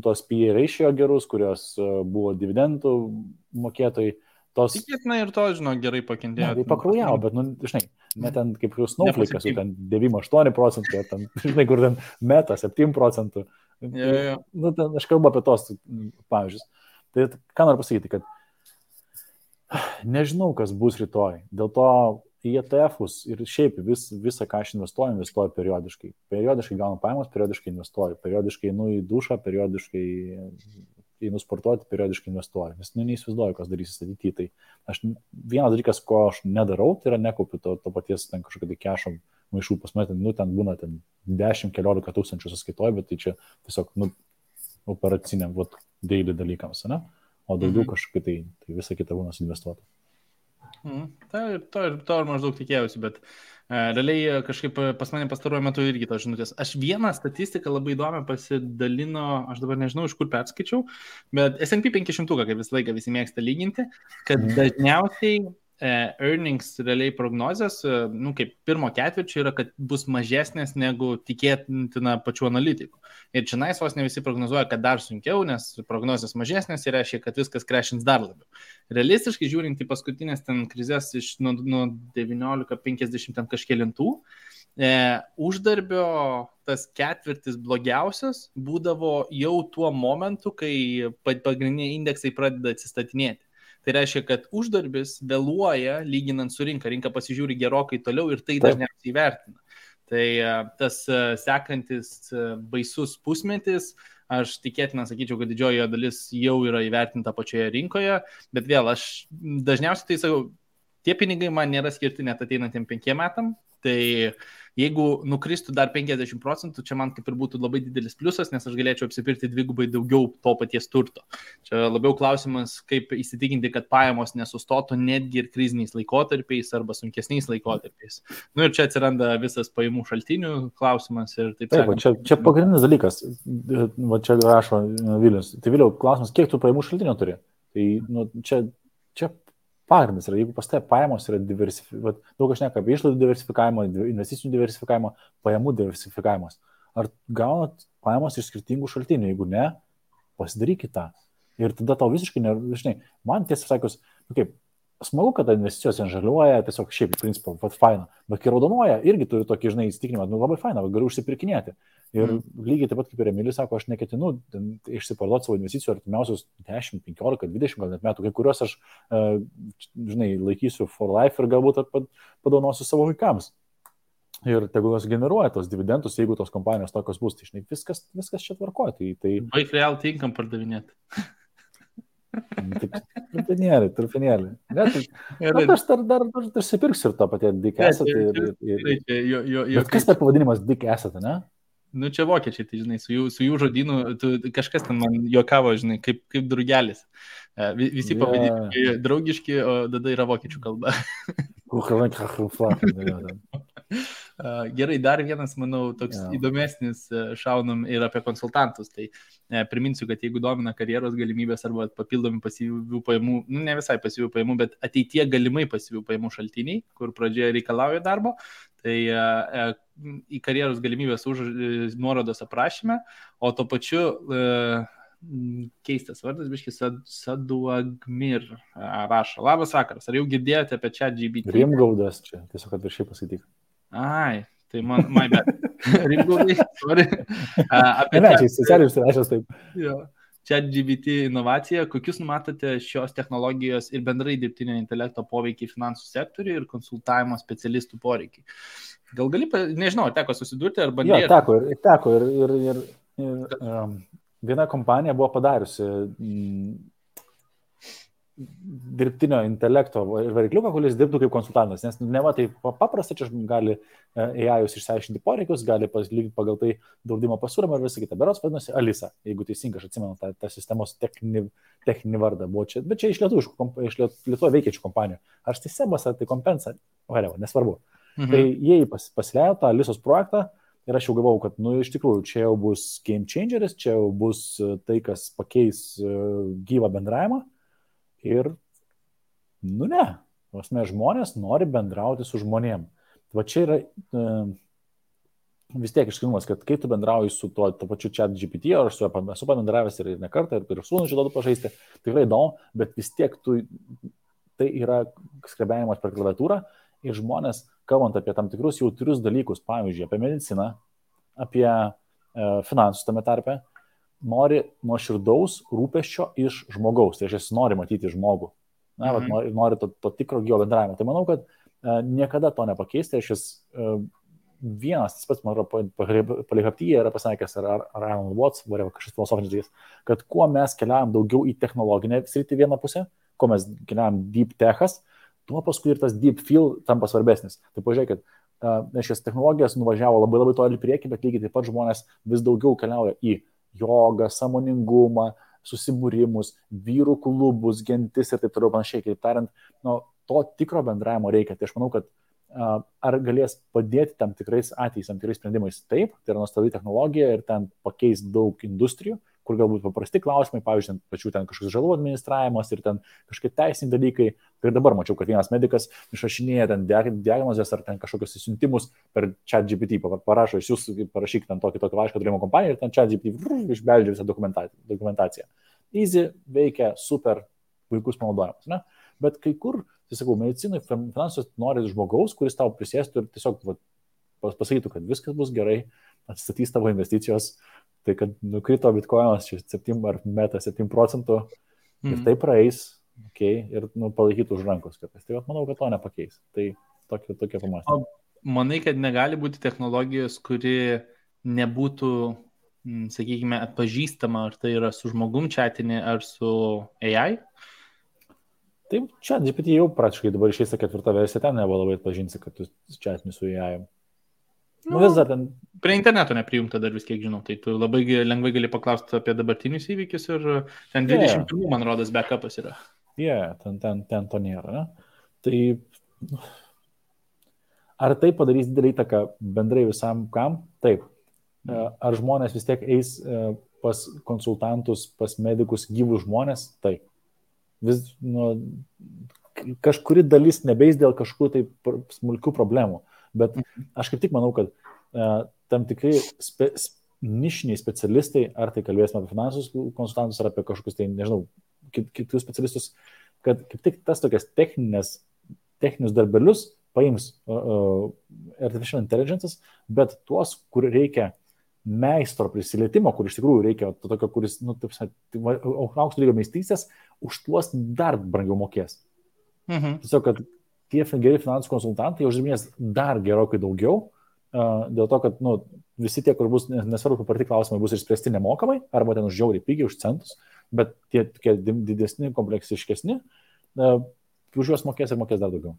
tos PE ratio gerus, kurios buvo dividendų mokėtojai. Tikėtina ir to, žinau, gerai pakentėjo. Tai pakraujavo, bet, žinai, ne ten kaip Snowflake'as, ten 9-8%, ten, žinai, kur ten Meta 7%. Ten, aš kalbu apie tos pavyzdžius. Tai ką noriu pasakyti, kad nežinau, kas bus rytoj. Dėl to į ETF'us ir šiaip visą, ką aš investuoju periodiškai. Periodiškai gaunu pajamas, periodiškai investuoju. Periodiškai einu į dušą, periodiškai einu sportuoti, periodiškai investuoju. Nes neįsivaizduoju, kas darysis ateityje. Tai aš vienas dalykas, ko aš nedarau, tai yra nekaupiu to paties ten kažkokio tai kešo maišų pas mane, ten būna 10-15 tūkstančių sąskaitoje, bet tai čia tiesiog operaciniam, daily dalykams, ne? O daugiau kažkokia tai visa kita būna suinvestuota. To ir maždaug tikėjausi, bet realiai kažkaip pas mane pastaruoju metu irgi tos žinutės. Aš vieną statistiką labai įdomią pasidalino, aš dabar nežinau, iš kur perskaičiau, bet S&P 500, kaip visą laiką visi mėgsta lyginti, kad dažniausiai earnings realiai prognozės, kaip pirmo ketvirčio yra, kad bus mažesnės negu tikėtina pačių analitikų. Ir čia vos ne visi prognozuoja, kad dar sunkiau, nes prognozės mažesnės ir reiškia, kad viskas crashins dar labiau. Realistiškai žiūrint į paskutinės ten krizės iš nuo 1950 ten kažkėlintų, uždarbio tas ketvirtis blogiausias būdavo jau tuo momentu, kai pagrindiniai indeksai pradeda atsistatinėti. Tai reiškia, kad uždarbis vėluoja lyginant su rinka. Rinka pasižiūri gerokai toliau ir tai dažniausiai įvertina. Tai tas sekantis baisus pusmetis, aš tikėtina sakyčiau, kad didžioji dalis jau yra įvertinta pačioje rinkoje, bet vėl aš dažniausiai tai sakau, tie pinigai man nėra skirti net ateinantiem 5 metam, tai jeigu nukristų dar 50%, čia man kaip ir būtų labai didelis pliusas, nes aš galėčiau apsipirkti dvigubai daugiau to paties turto. Čia labiau klausimas, kaip įsitikinti, kad pajamos nesustotų netgi ir kriziniais laikotarpiais arba sunkesniais laikotarpiais. Ir čia atsiranda visas pajamų šaltinių klausimas ir taip sakant. Čia pagrindinis dalykas, čia rašo Vilius. Tai Viliau, klausimas, kiek tu pajamų šaltinio turi? Tai čia pagrindas yra, jeigu pas tai pajamos yra diversifikuojamos, daug aš neka apie išlaidų diversifikavimą, investicinių diversifikavimą, pajamų diversifikavimas. Ar gaunat pajamos iš skirtingų šaltinių? Jeigu ne, pasidarykit tą. Ir tada tau visiškai, žinai, man tiesą sakius, smagu, kad investicijos žaliuoja, tiesiog šiaip, iš principo, faina. Bet kai raudonuoja, irgi turiu tokį, žinai, įsitikinimą, labai faina, galiu užsipirkinėti. Ir lygiai taip pat kaip ir Emilis sako, aš neketinu išsiparduoti savo investicijų artimiausius 10, 15, 20 gal net metų, kai kuriuos aš, žinai, laikysiu for life ir galbūt padovanosiu savo vaikams. Ir tegul jos generuoja tos dividendus, jeigu tos kompanijos tokios bus, tai žinai, viskas čia tvarkoja. Baig real tinkam pardavinėti. Trupinėlį. Bet aš dar susipirksiu ir to patie Dick Asset. Bet kas per pavadinimas Dick Asset, ne? Nu, čia vokiečiai, tai žinai, su jų žodynu, kažkas ten man juokavo, žinai, kaip drugelis. Visi pavadinimai draugiški, o tada yra vokiečių kalba. Gerai, dar vienas, manau, toks įdomesnis šaunam ir apie konsultantus. Tai priminsiu, kad jeigu domina karjeros galimybės arba papildomi pasyvių pajamų, ne visai pasyvių pajamų, bet ateitie galimai pasyvių pajamų šaltiniai, kur pradžioje reikalauja darbo, tai į karjeros galimybės nuorodos aprašyme, o to pačiu keistas vardas, biškis Saduagmir rašo. Labas vakaras, ar jau girdėjote apie ChatGPT? Rimgaudas čia, tiesiog kad viršiai pasakyk. Ai, tai my bad. Rimgaudai, sorry. Socialiai taip. Jo. ChatGPT inovacija, kokius numatote šios technologijos ir bendrai dirbtinio intelekto poveikiai finansų sektoriui ir konsultavimo specialistų poreikiai? Gal gali, nežinau, teko susidurti ar bandyti? Jo, teko ir viena kompanija buvo padariusi dirbtinio intelekto varikliuką, kuris dirbtų kaip konsultantas, nes ne va tai paprasta, čia gali AI-us išsiaiškinti poreikius, gali palyginti pagal tai draudimo pasiūlymą ir visą kitą. Berods vadinasi Alisa, jeigu teisingai aš atsimenu tą sistemos techninį vardą. Buvo čia, bet čia iš Lietuvoje veikiančių kompanijų. Ar tai Sebas, ar tai Kompensa, nesvarbu. Tai jie pasileido tą Alisos projektą ir aš jau galvojau, kad, iš tikrųjų, čia jau bus game changeris, čia jau bus tai, kas pakeis gyvą bendravimą. Ir, ne, žmonės nori bendrauti su žmonėm. Va čia yra vis tiek išskirtumas, kad kai tu bendrauji su to pačiu ChatGPT, ar su esu pabendravęs ir ne kartą, ir sūnų šitą pažaisti, tikrai įdomu, bet vis tiek tai yra skrebėjimas per klaviatūrą ir žmonės, kalbant apie tam tikrus jautrius dalykus, pavyzdžiui, apie mediciną, apie finansus tame tarpe, nori nuoširdaus rūpesčio iš žmogaus, tai aš nori matyti žmogų, nori to tikro gyvo bendravimo. Tai manau, kad niekada to nepakeisti, aš vienas, tas pats, man atrodo, Polyhaptyje yra pasakęs, ar Alan Watts, kažkas filosofinis dalykas, kad kuo mes keliavam daugiau į technologinę sritį vieną pusę, kuo mes keliavam deep techas, tuo paskui ir tas deep feel tampa svarbesnis. Tai pažiūrėkit, šias technologijas nuvažiavo labai labai toli priekį, bet lygiai taip pat žmonės vis daugiau keliauja į jogą, sąmoningumą, susibūrimus, vyrų klubus, gentis ir taip toliau panašiai. Kaip tariant, to tikro bendravimo reikia. Tai aš manau, kad ar galės padėti tam tikrais atvejais, tam tikrais sprendimais? Taip, tai yra nuostabi technologija ir ten pakeis daug industrijų, kur galbūt paprasti klausimai, pavyzdžiui, pačių ten kažkoks žalų administravimas ir ten kažkokie teisiniai dalykai. Ir dabar mačiau, kad vienas medikas išrašinėja ten diagnozės ar ten kažkokius įsiuntimus per ChatGPT, parašo, jūs parašyk ten tokį laišką turėjimo kompaniją ir ten ChatGPT išbeldžia visą dokumentaciją. Easy, veikia, super, puikus panaudojimas, ne? Bet kai kur, tai sakau, medicinai, finansus nori žmogaus, kuris tau prisėstų ir tiesiog pasakytų, kad viskas bus gerai, atsistatys tavo investicijos, tai kad nukrito bitkoinas 7 ar meta 7% ir tai praeis, ir palaikytų už rankos kartais. Tai manau, kad to nepakeis. Tai tokia pamąstymė. Manai, kad negali būti technologijos, kuri nebūtų, sakykime, atpažįstama, ar tai yra su žmogum chatinė, ar su AI? Taip, ChatGPT jau praktiškai dabar išeis 4 versija, ten nebuvo labai atpažinsi, kad tu chatini su AI. Vis dar ten. Prie interneto neprijungta dar vis kiek žinau, tai tu labai lengvai gali paklausti apie dabartinius įvykius ir ten 21, man rodas, backupas yra. Ten to nėra, ne? Tai ar tai padarys didelį įtaką bendrai visam kam? Taip. Ar žmonės vis tiek eis pas konsultantus, pas medikus gyvus žmonės? Taip. Kažkuri dalis nebeis dėl kažkokių tai smulkių problemų. Bet aš kaip tik manau, kad tam tikrai nišiniai specialistai, ar tai kalbėsime apie finansus konsultantus, ar apie kažkokius tai, nežinau, kitus specialistus, kad kaip tik tas tokias techninius darbelius paims artificial intelligence, bet tuos, kur reikia meistro prisilietimo, kur iš tikrųjų reikia to tokio, kuris, aukšto lygio meistrystės, už tuos dar brangiau mokės. Tiesiog, kad tie geri finansų konsultantai uždirbinės dar gerokai daugiau, dėl to, kad visi tie, kur bus, nesvarbu, kaip parti klausimai, bus išspręsti nemokamai, arba ten už žiauriai pigiai, už centus, bet tie tokie didesni, kompleksiškesni, už juos mokės ir mokės dar daugiau.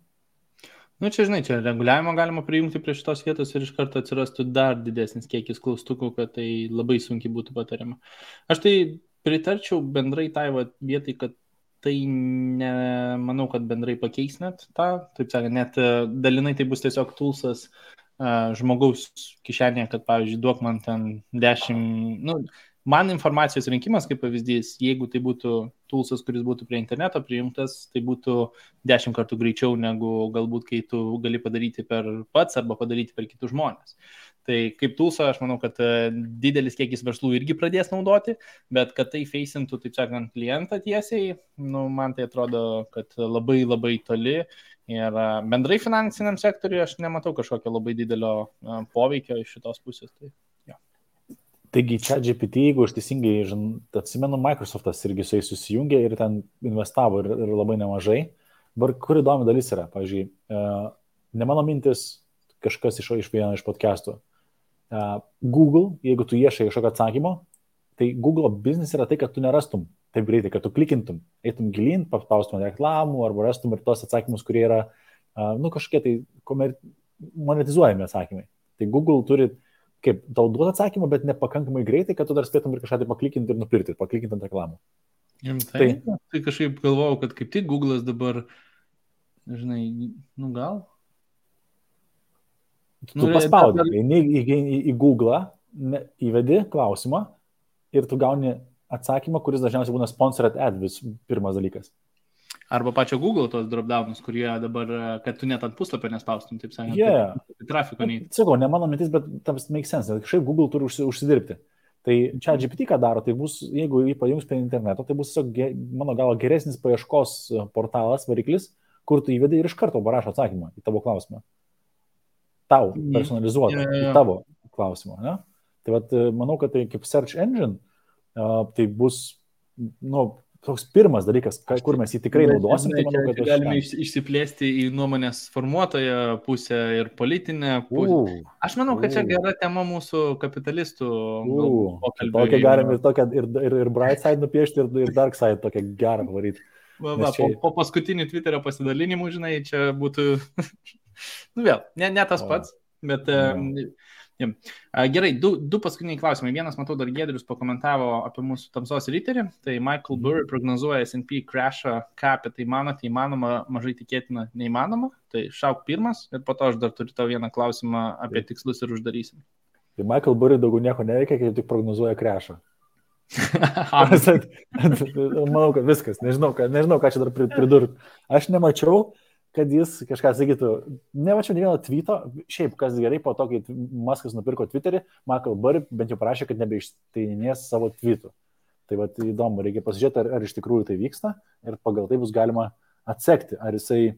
Čia, žinai, čia reguliavimo galima prijungti prie šitos vietos ir iš karto atsirastų dar didesnis kiekis klaustukų, kad tai labai sunkiai būtų patariama. Aš tai pritarčiau bendrai tai vietai, kad tai nemanau, kad bendrai pakeis net tą, taip sakant, net dalinai tai bus tiesiog toolsas žmogaus kišenėje, kad, pavyzdžiui, duok man ten 10, man informacijos rinkimas, kaip pavyzdys, jeigu tai būtų toolsas, kuris būtų prie interneto prijungtas, tai būtų 10 kartų greičiau negu galbūt, kai tu gali padaryti per pats arba padaryti per kitus žmonės. Tai kaip toolsą, aš manau, kad didelis kiekis verslų irgi pradės naudoti, bet kad tai feisintų, taip sakant, klientą tiesiai, man tai atrodo, kad labai labai toli ir bendrai finansiniam sektoriui aš nematau kažkokio labai didelio poveikio iš šitos pusės. Taigi ChatGPT, jeigu aš teisingai atsimenu, Microsoftas irgi su jais susijungė ir ten investavo ir labai nemažai. Dabar kur įdomi dalis yra, pavyzdžiui, ne mano mintis, kažkas iš vieno iš podcastų. Google, jeigu tu ieškai kažkokio atsakymo, tai Google biznis yra tai, kad tu nerastum taip greitai, kad tu klikintum, eitum gilin, paspaustum reklamų arba rastum ir tos atsakymus, kurie yra, kažkokie tai monetizuojami atsakymai. Tai Google turi kaip tau duoda atsakymą, bet nepakankamai greitai, kad tu dar spėtum ir kažką tai paklikinti ir nupirkti, paklikinti ant reklamų. Tai kažkaip galvojau, kad kaip tik Google'as dabar, žinai, gal? Tu paspaudi, eini į Google'ą, įvedi klausimą ir tu gauni atsakymą, kuris dažniausiai būna sponsored ad, pirmas dalykas. Arba pačio Google tos dropdownus, kurie dabar, kad tu net ant puslapio nespaustum, taip sakant. Trafiko nei. Sakau, ne mano mintis, bet tas make sense, nes kažkaip Google turi užsidirbti. Tai ChatGPT ką daro, tai bus, jeigu jį pajungs prie interneto, tai bus tiesiog, mano galo, geresnis paieškos portalas, variklis, kur tu įvedi ir iš karto parašo atsakymą į tavo klausimą. Tau personalizuotą į tavo klausimą. Ne? Tai vat, manau, kad tai kaip search engine, tai bus, toks pirmas dalykas, kur mes jį tikrai naudosim. Tai manau, kad galime išsiplėsti į nuomonės formuotoją pusę ir politinę pusę. Aš manau, kad čia gera tema mūsų kapitalistų pokalbių. Tokią galim ir bright side nupiešti, ir dark side tokią gerą pavaryti. Po paskutinių Twitterio pasidalinimų, žinai, čia būtų, vėl, ne tas pats, bet... Gerai, du paskutiniai klausimai. Vienas, matau, dar Giedrius pakomentavo apie mūsų tamsos riterį. Tai Michael Burry prognozuoja S&P crashą, ką apie tai manote, įmanoma, mažai tikėtina, neįmanoma. Tai šauk pirmas ir po to aš dar turiu tau vieną klausimą apie tikslus ir uždarysim. Tai Michael Burry daugiau nieko neveikia, kai tik prognozuoja crashą. Manau, kad viskas. Nežinau, ką čia dar pridurti. Aš nemačiau, kad jis kažką sakytų, nemačiau ne vieno tweeto, šiaip kas gerai, po to, kai Muskas nupirko Twitterį, Michael Burry bent jau parašė, kad nebeišteininės savo tweetų. Tai vat įdomu, reikia pasižiūrėti, ar iš tikrųjų tai vyksta ir pagal tai bus galima atsekti, ar jisai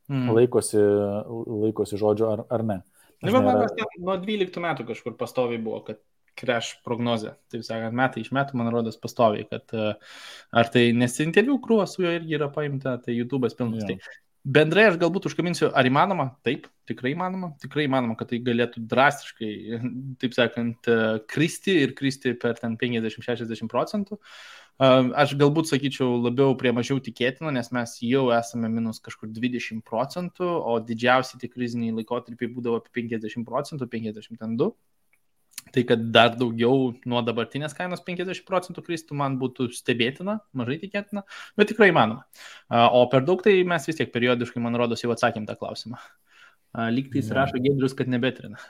laikosi žodžio ar ne. Nuo 12 metų kažkur pastoviai buvo, kad crash prognozė, taip sakant, metai iš metų, man rodos, pastoviai, kad ar tai nesinterviu krūva su juo irgi yra paimta, tai YouTube'as pilnas. Tai bendrai aš galbūt užkabinsiu, ar įmanoma? Taip, tikrai įmanoma, kad tai galėtų drastiškai, taip sakant, kristi per ten 50-60%. Aš galbūt sakyčiau labiau prie mažiau tikėtino, nes mes jau esame minus kažkur 20%, o didžiausi tie kriziniai laikotarpiai būdavo apie 50%, 52%. Tai kad dar daugiau nuo dabartinės kainos 50% kristų man būtų stebėtina, mažai tikėtina, bet tikrai įmanoma. O per daug tai mes vis tiek periodiškai, man rodos, jau atsakėm tą klausimą. Lygtais rašo Giedrius, kad nebetrina.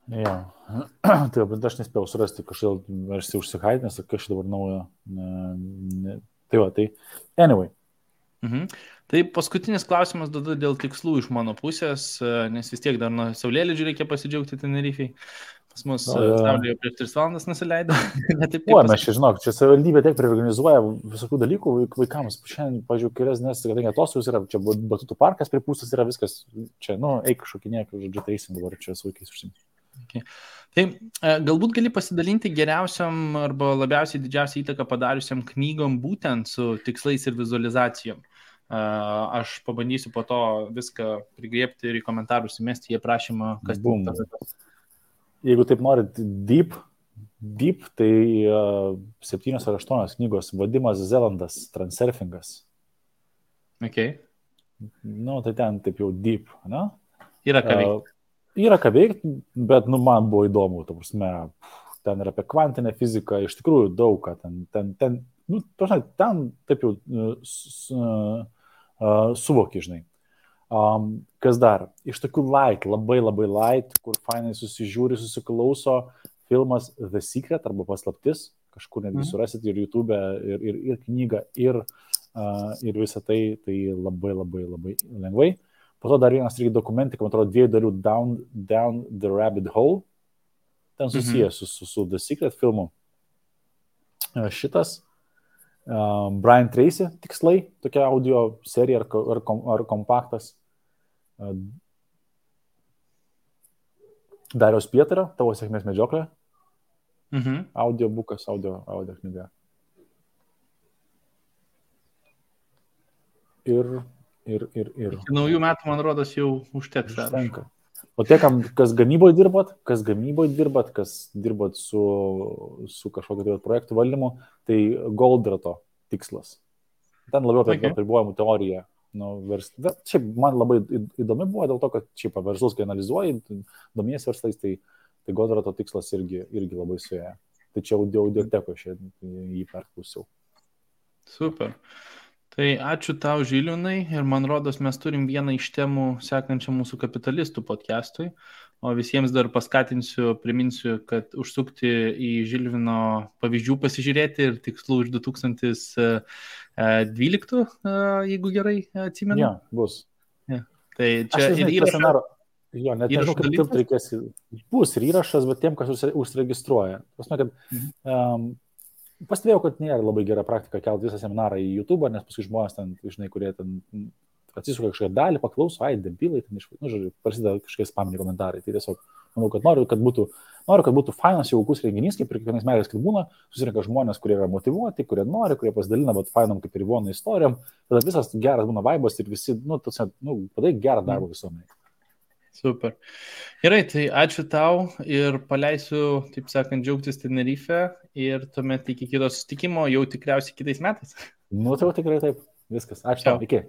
Jo, tai bet aš nespėjau surasti, kažkaip aš užsihaidinęs, kažkaip dabar naujo. Tai va, tai anyway. Tai paskutinis klausimas dėl tikslų iš mano pusės, nes vis tiek dar nuo saulėlydžių reikia pasidžiaugti Tenerifei. Pas mus Saulė jau prieš 3 valandas nusileido. O, mes čia, žinok, čia savivaldybė tiek priorganizuoja visokių dalykų vaikams. Šiandien, pažiūrėjau, kelias, nes kadangi atostogos yra, čia batutų parkas pripūstas yra viskas, čia, eik šokinėk, žodžiu, teisim dabar čia su vaikais užsimti. Okay. Tai galbūt gali pasidalinti geriausiam arba labiausiai didžiausią įtaką padariusiam knygom būtent su tikslais ir vizualizacijom. Aš pabandysiu po to viską prigriepti ir į komentarus įmesti į aprašymą, kas bum. Jeigu taip norit deep, tai 7 ar 8 knygos. Vadimas Zelandas, Transurfingas. Okay. Tai ten taip jau deep, ne? Yra ką veikti. Yra ką veikti, bet, man buvo įdomu, ta prasme, ten yra apie kvantinę fiziką, iš tikrųjų daug ką ten taip jau suvoki, žinai. Kas dar? Iš tokių light, labai light, kur fainai susižiūri, susiklauso filmas The Secret arba Paslaptis, kažkur netgi surasit ir YouTube, ir knygą, ir visą tai labai lengvai. Po to dar vienas irgi dokumentika, man atrodo, 2 dalių Down the Rabbit Hole, ten susijęs su The Secret filmu. Šitas Brian Tracy tikslai, tokia audio serija ar kompaktas. Dariaus Pietario, Tavo sėkmės medžioklė. Audiobukas, audio knyga. Ir. Iki naujų metų, man rodos, jau užteks. Užtenka. O tie, kas gamyboje dirbat, kas dirbat su kažkokio projektų valdymu, tai Goldrato tikslas. Ten labiau apie apribojimų teoriją. Šiaip man labai įdomi buvo dėl to, kad šiaip verslus, kai analizuoji, domies verslais, tai Goldrato tikslas irgi labai suėję. Tai čia audioteko jį perklausiau. Super. Tai ačiū tau, Žilvinai, ir man rodos, mes turim vieną iš temų sekančią mūsų kapitalistų podcastui, o visiems dar priminsiu, kad užsukti į Žilvino pavyzdžių pasižiūrėti ir tikslų iš 2012, jeigu gerai atsimenu. Jo, bus. Ja. Tai čia ir įrašas. Jo, net nežinau, kaip tilpt reikės. Bus ir įrašas, bet tiem, kas užsiregistruoja. Pasme, kad pastebėjau, kad nėra labai gera praktika kelti visą seminarą į YouTube, nes paskui žmonės ten, žinai, kurie ten atsisuka kažkokią dalį, paklauso, debilai, ten žodžiu, prasideda kažkokie spaminiai komentarai. Tai tiesiog, manau, kad noriu, kad būtų fainas jaukus renginys, kaip ir kiekvienais metais, kad būna, susirinka žmonės, kurie yra motyvuoti, kurie nori, kurie pasidalina, bet fainam kaip ir Ivonų istorijom, tada visas geras būna vaibas ir visi, padarai gerą darbą visuomenėje. Super. Gerai, tai ačiū tau ir paleisiu, taip sakant, džiaugtis Tenerife ir tuomet iki kito susitikimo jau tikriausiai kitais metais. Tai jau tikrai taip. Viskas. Ačiū tau. Iki.